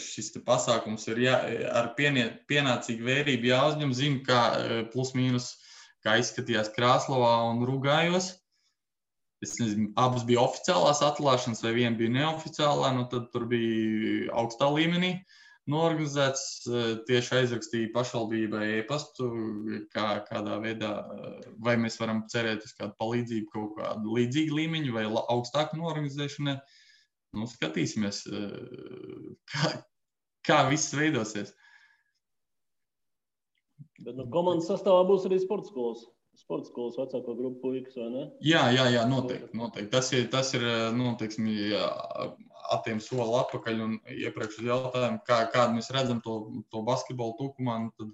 Speaker 3: šis pasākums ir ar pienācīgu vērību jāuzņem, zinu, kā plus mīnus, kā izskatījās Krāslavā un Rugājos. Es nezinu, abas bija oficiālās atklāšanas vai viena bija neoficiālā, tad tur bija augstā līmenī noorganizēts, tieši aizrakstīja pašvaldībai e-pastu, kādā veidā, vai mēs varam cerēt uz kādu palīdzību, kaut kādu līdzīgu līmeņu vai augstāku noorganizēšanai. Skatīsimies, kā viss veidosies.
Speaker 2: Bet komandas sastāvā būs arī sporta skolas vecāko grupu puikas, vai ne?
Speaker 3: Jā, noteikti. Tas ir atiem soli atpakaļ un iepriekš uz jautājumu, kādu mēs redzam to basketbolu Tukumā, tad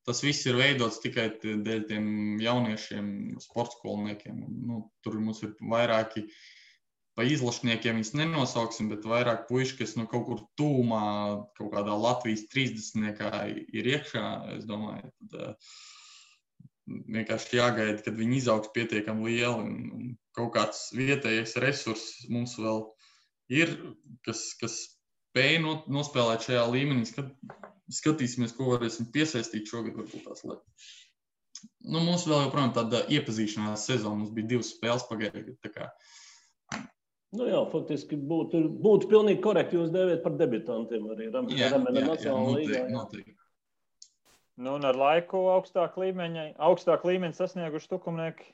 Speaker 3: tas viss ir veidots tikai dēļ tiem jauniešiem sporta skolniekiem. Tur mums ir vairāki pa izlašniekiem viņus nenosauksim, bet vairāk puiši, kas kaut kur tūmā, kaut kādā Latvijas 30-niekā ir iekšā, es domāju, tad vienkārši jāgaida, kad viņi izaugs pietiekami lieli un kaut kāds vietējais resurss mums vēl ir, kas spēj nospēlēt šajā līmenī. Skatīsimies, ko varēsim piesaistīt šogad, varbūt tās lietas. Mums vēl joprojām tāda iepazīšanās sezona, mums bija 2 spēles pagājušajā gadā.
Speaker 2: Faktiski būtu pilnīgi korekti jūs dēvēt par debitantiem arī Ramena Nacionālā līgā.
Speaker 3: Noteikti.
Speaker 1: Un ar laiku augstāk līmeņi sasnieguši Tukumnieki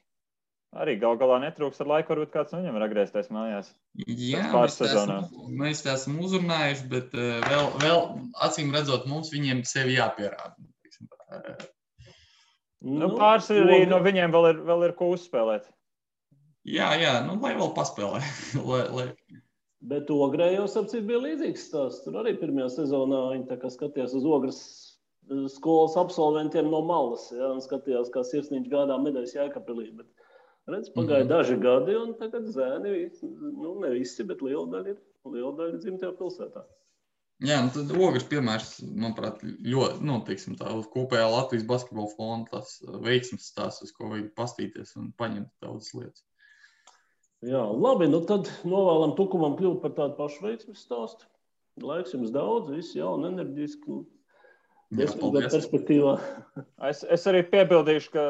Speaker 1: arī galā netrūks. Ar laiku varbūt kāds no viņiem var atgriezties mājās.
Speaker 3: Jā, mēs tā esam uzrunājuši, bet vēl acīm redzot mums viņiem sevi jāpierāda.
Speaker 1: Pāris arī no viņiem vēl ir ko uzspēlēt.
Speaker 3: Jā, lai vēl paspēlē.
Speaker 2: Bet Ogrē jau sapcīt bija līdzīgs stāsts. Tur arī pirmajā sezonā viņi tā kā skatījās uz Ogras skolas absolventiem no malas, un skatījās, kā sirsniņš gādā medaļas Jēkabpilī. Bet pagāja daži gadi, un tagad zēni, ne visi, bet liela daļa dzimtajā pilsētā.
Speaker 3: Jā, tad Ogras piemērs, manuprāt, ļoti, tā uz kopējā Latvijas basketbola fonda tas veiksmes stāsts, uz ko vajag pastīties un paņemt daudzas lietas.
Speaker 2: Jā, labi, tad novēlam Tukumam kļūt par tādu pašu veiksmes stāstu. Laiks jums daudz, visi jauni, enerģiski, perspektīvā.
Speaker 1: Es arī piebildīšu, ka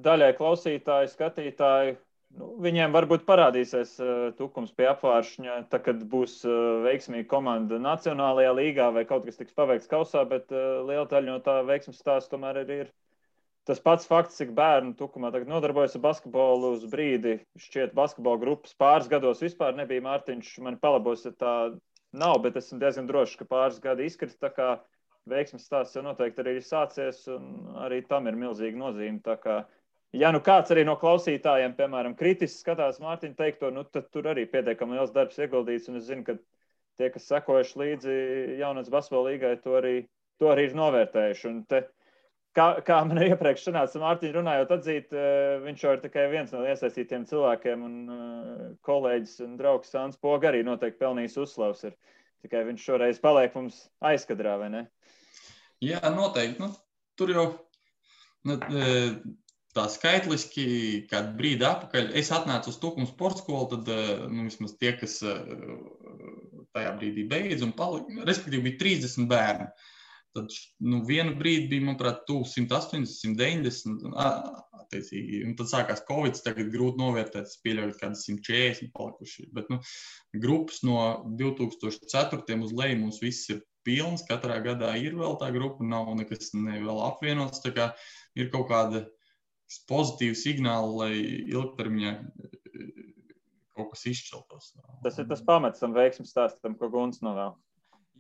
Speaker 1: daļai klausītāji, skatītāji, viņiem varbūt parādīsies Tukums pie apvāršņa, kad būs veiksmīga komanda Nacionālajā līgā vai kaut kas tiks paveikts kausā, bet liela daļa no tā veiksmes stāsta tomēr ir tas pats fakts, cik bērnu Tukumā tagad nodarbojas ar basketbolu uz brīdi. Šķiet, basketbola grupas pāris gados vispār nebija. Mārtiņš mani palabos, ja tā nav, bet esmu diezgan drošs, ka pāris gadi izkrita. Tā kā veiksmes stāsts jau noteikti arī ir sācies, un arī tam ir milzīga nozīme. Tā kā, ja nu kāds arī no klausītājiem, piemēram, kritiski skatās Mārtiņa teikto, nu tad tur arī pietiekami liels darbs ieguldīts, un es zinu, ka tie, kas sekojuši līdzi jaunatnes basketbola līgai, to arī ir novērtējuši. Un te, kā man iepriekš sanāca Mārtiņu runājot atzīt, viņš jau ir tikai viens no iesaistītiem cilvēkiem, un kolēģis un draugs Sāns Poga arī noteikti pelnījis uzslavas. Tikai viņš šoreiz paliek mums aizkadrā, vai ne?
Speaker 3: Jā, noteikti. Nu, tur jau tā skaitliski, kādu brīdi atpakaļ, es atnācu uz Tukuma sporta skolu, tad vismaz tie, kas tajā brīdī beidz un palika, respektīvi bija 30 bērni. Tad vienu brīdi bija, manuprāt, 180, 190, attiecīgi, un tad sākās Covid, tagad grūti novērtēt, es pieļauju kādas 140 palikuši, bet grupas no 2004. Uz leju mums viss ir pilns, katrā gadā ir vēl tā grupa, nav nekas vēl apvienots, tā kā ir kaut kāda pozitīva signāla, lai ilgtermiņā kaut kas izšķeltos.
Speaker 1: Tas ir tas pamats tam veiksmes stāstam, ko Gunts novēl.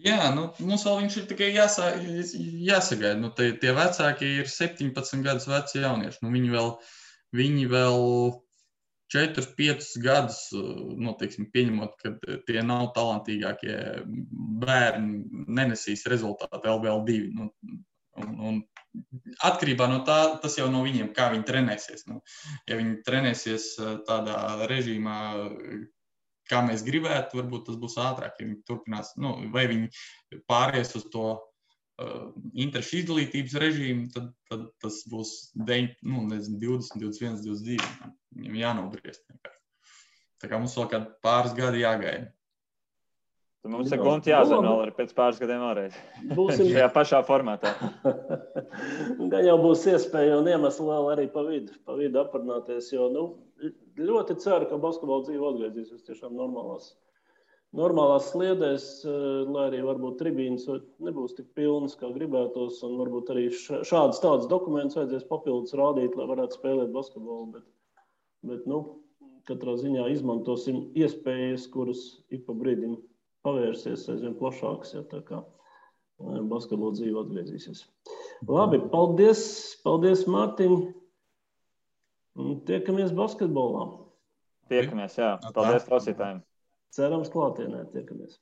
Speaker 3: Jā, mums vēl viņš ir tikai jāsagaida. Tie vecāki ir 17 gadus veci jaunieši. Viņi vēl 4-5 gadus, teiksim, pieņemot, ka tie nav talantīgākie bērni, nenesīs rezultātu LBL2. Un atkarībā no tā, tas jau no viņiem, kā viņi trenēsies. Ja viņi trenēsies tādā režīmā, kā mēs gribētu, varbūt tas būs ātrāk, ja viņi turpinās, vai viņi pāries uz to interešu izdalītības režīmu, tad tas būs 20, 21, 22. Viņam jānobriest. Tā kā mums vēl kādi pāris gadi jāgaida.
Speaker 1: Tad mums ir Gunti jāzina vēl arī pēc pāris gadiem vēlreiz. Būsim šajā pašā formātā.
Speaker 2: Gan jau būs iespēja un iemesli vēl arī pa vidu aprunāties, jo ļoti ceru, ka basketbola dzīve atgriezīsies tiešām normālās sliedēs, lai arī varbūt tribīnas nebūs tik pilnas, kā gribētos, un varbūt arī šādas tādas dokumentus vajadzēs papildus rādīt, lai varētu spēlēt basketbolu, bet katrā ziņā izmantosim iespējas, kuras ik pa brīdim pavērsies aizvien plašāks, ja tā kā basketbola dzīve atgriezīsies. Labi, paldies Mārtiņ. Tiekamies basketbolā.
Speaker 1: Tiekamies, jā. Paldies klausītājiem.
Speaker 2: Cerams klātienē tiekamies.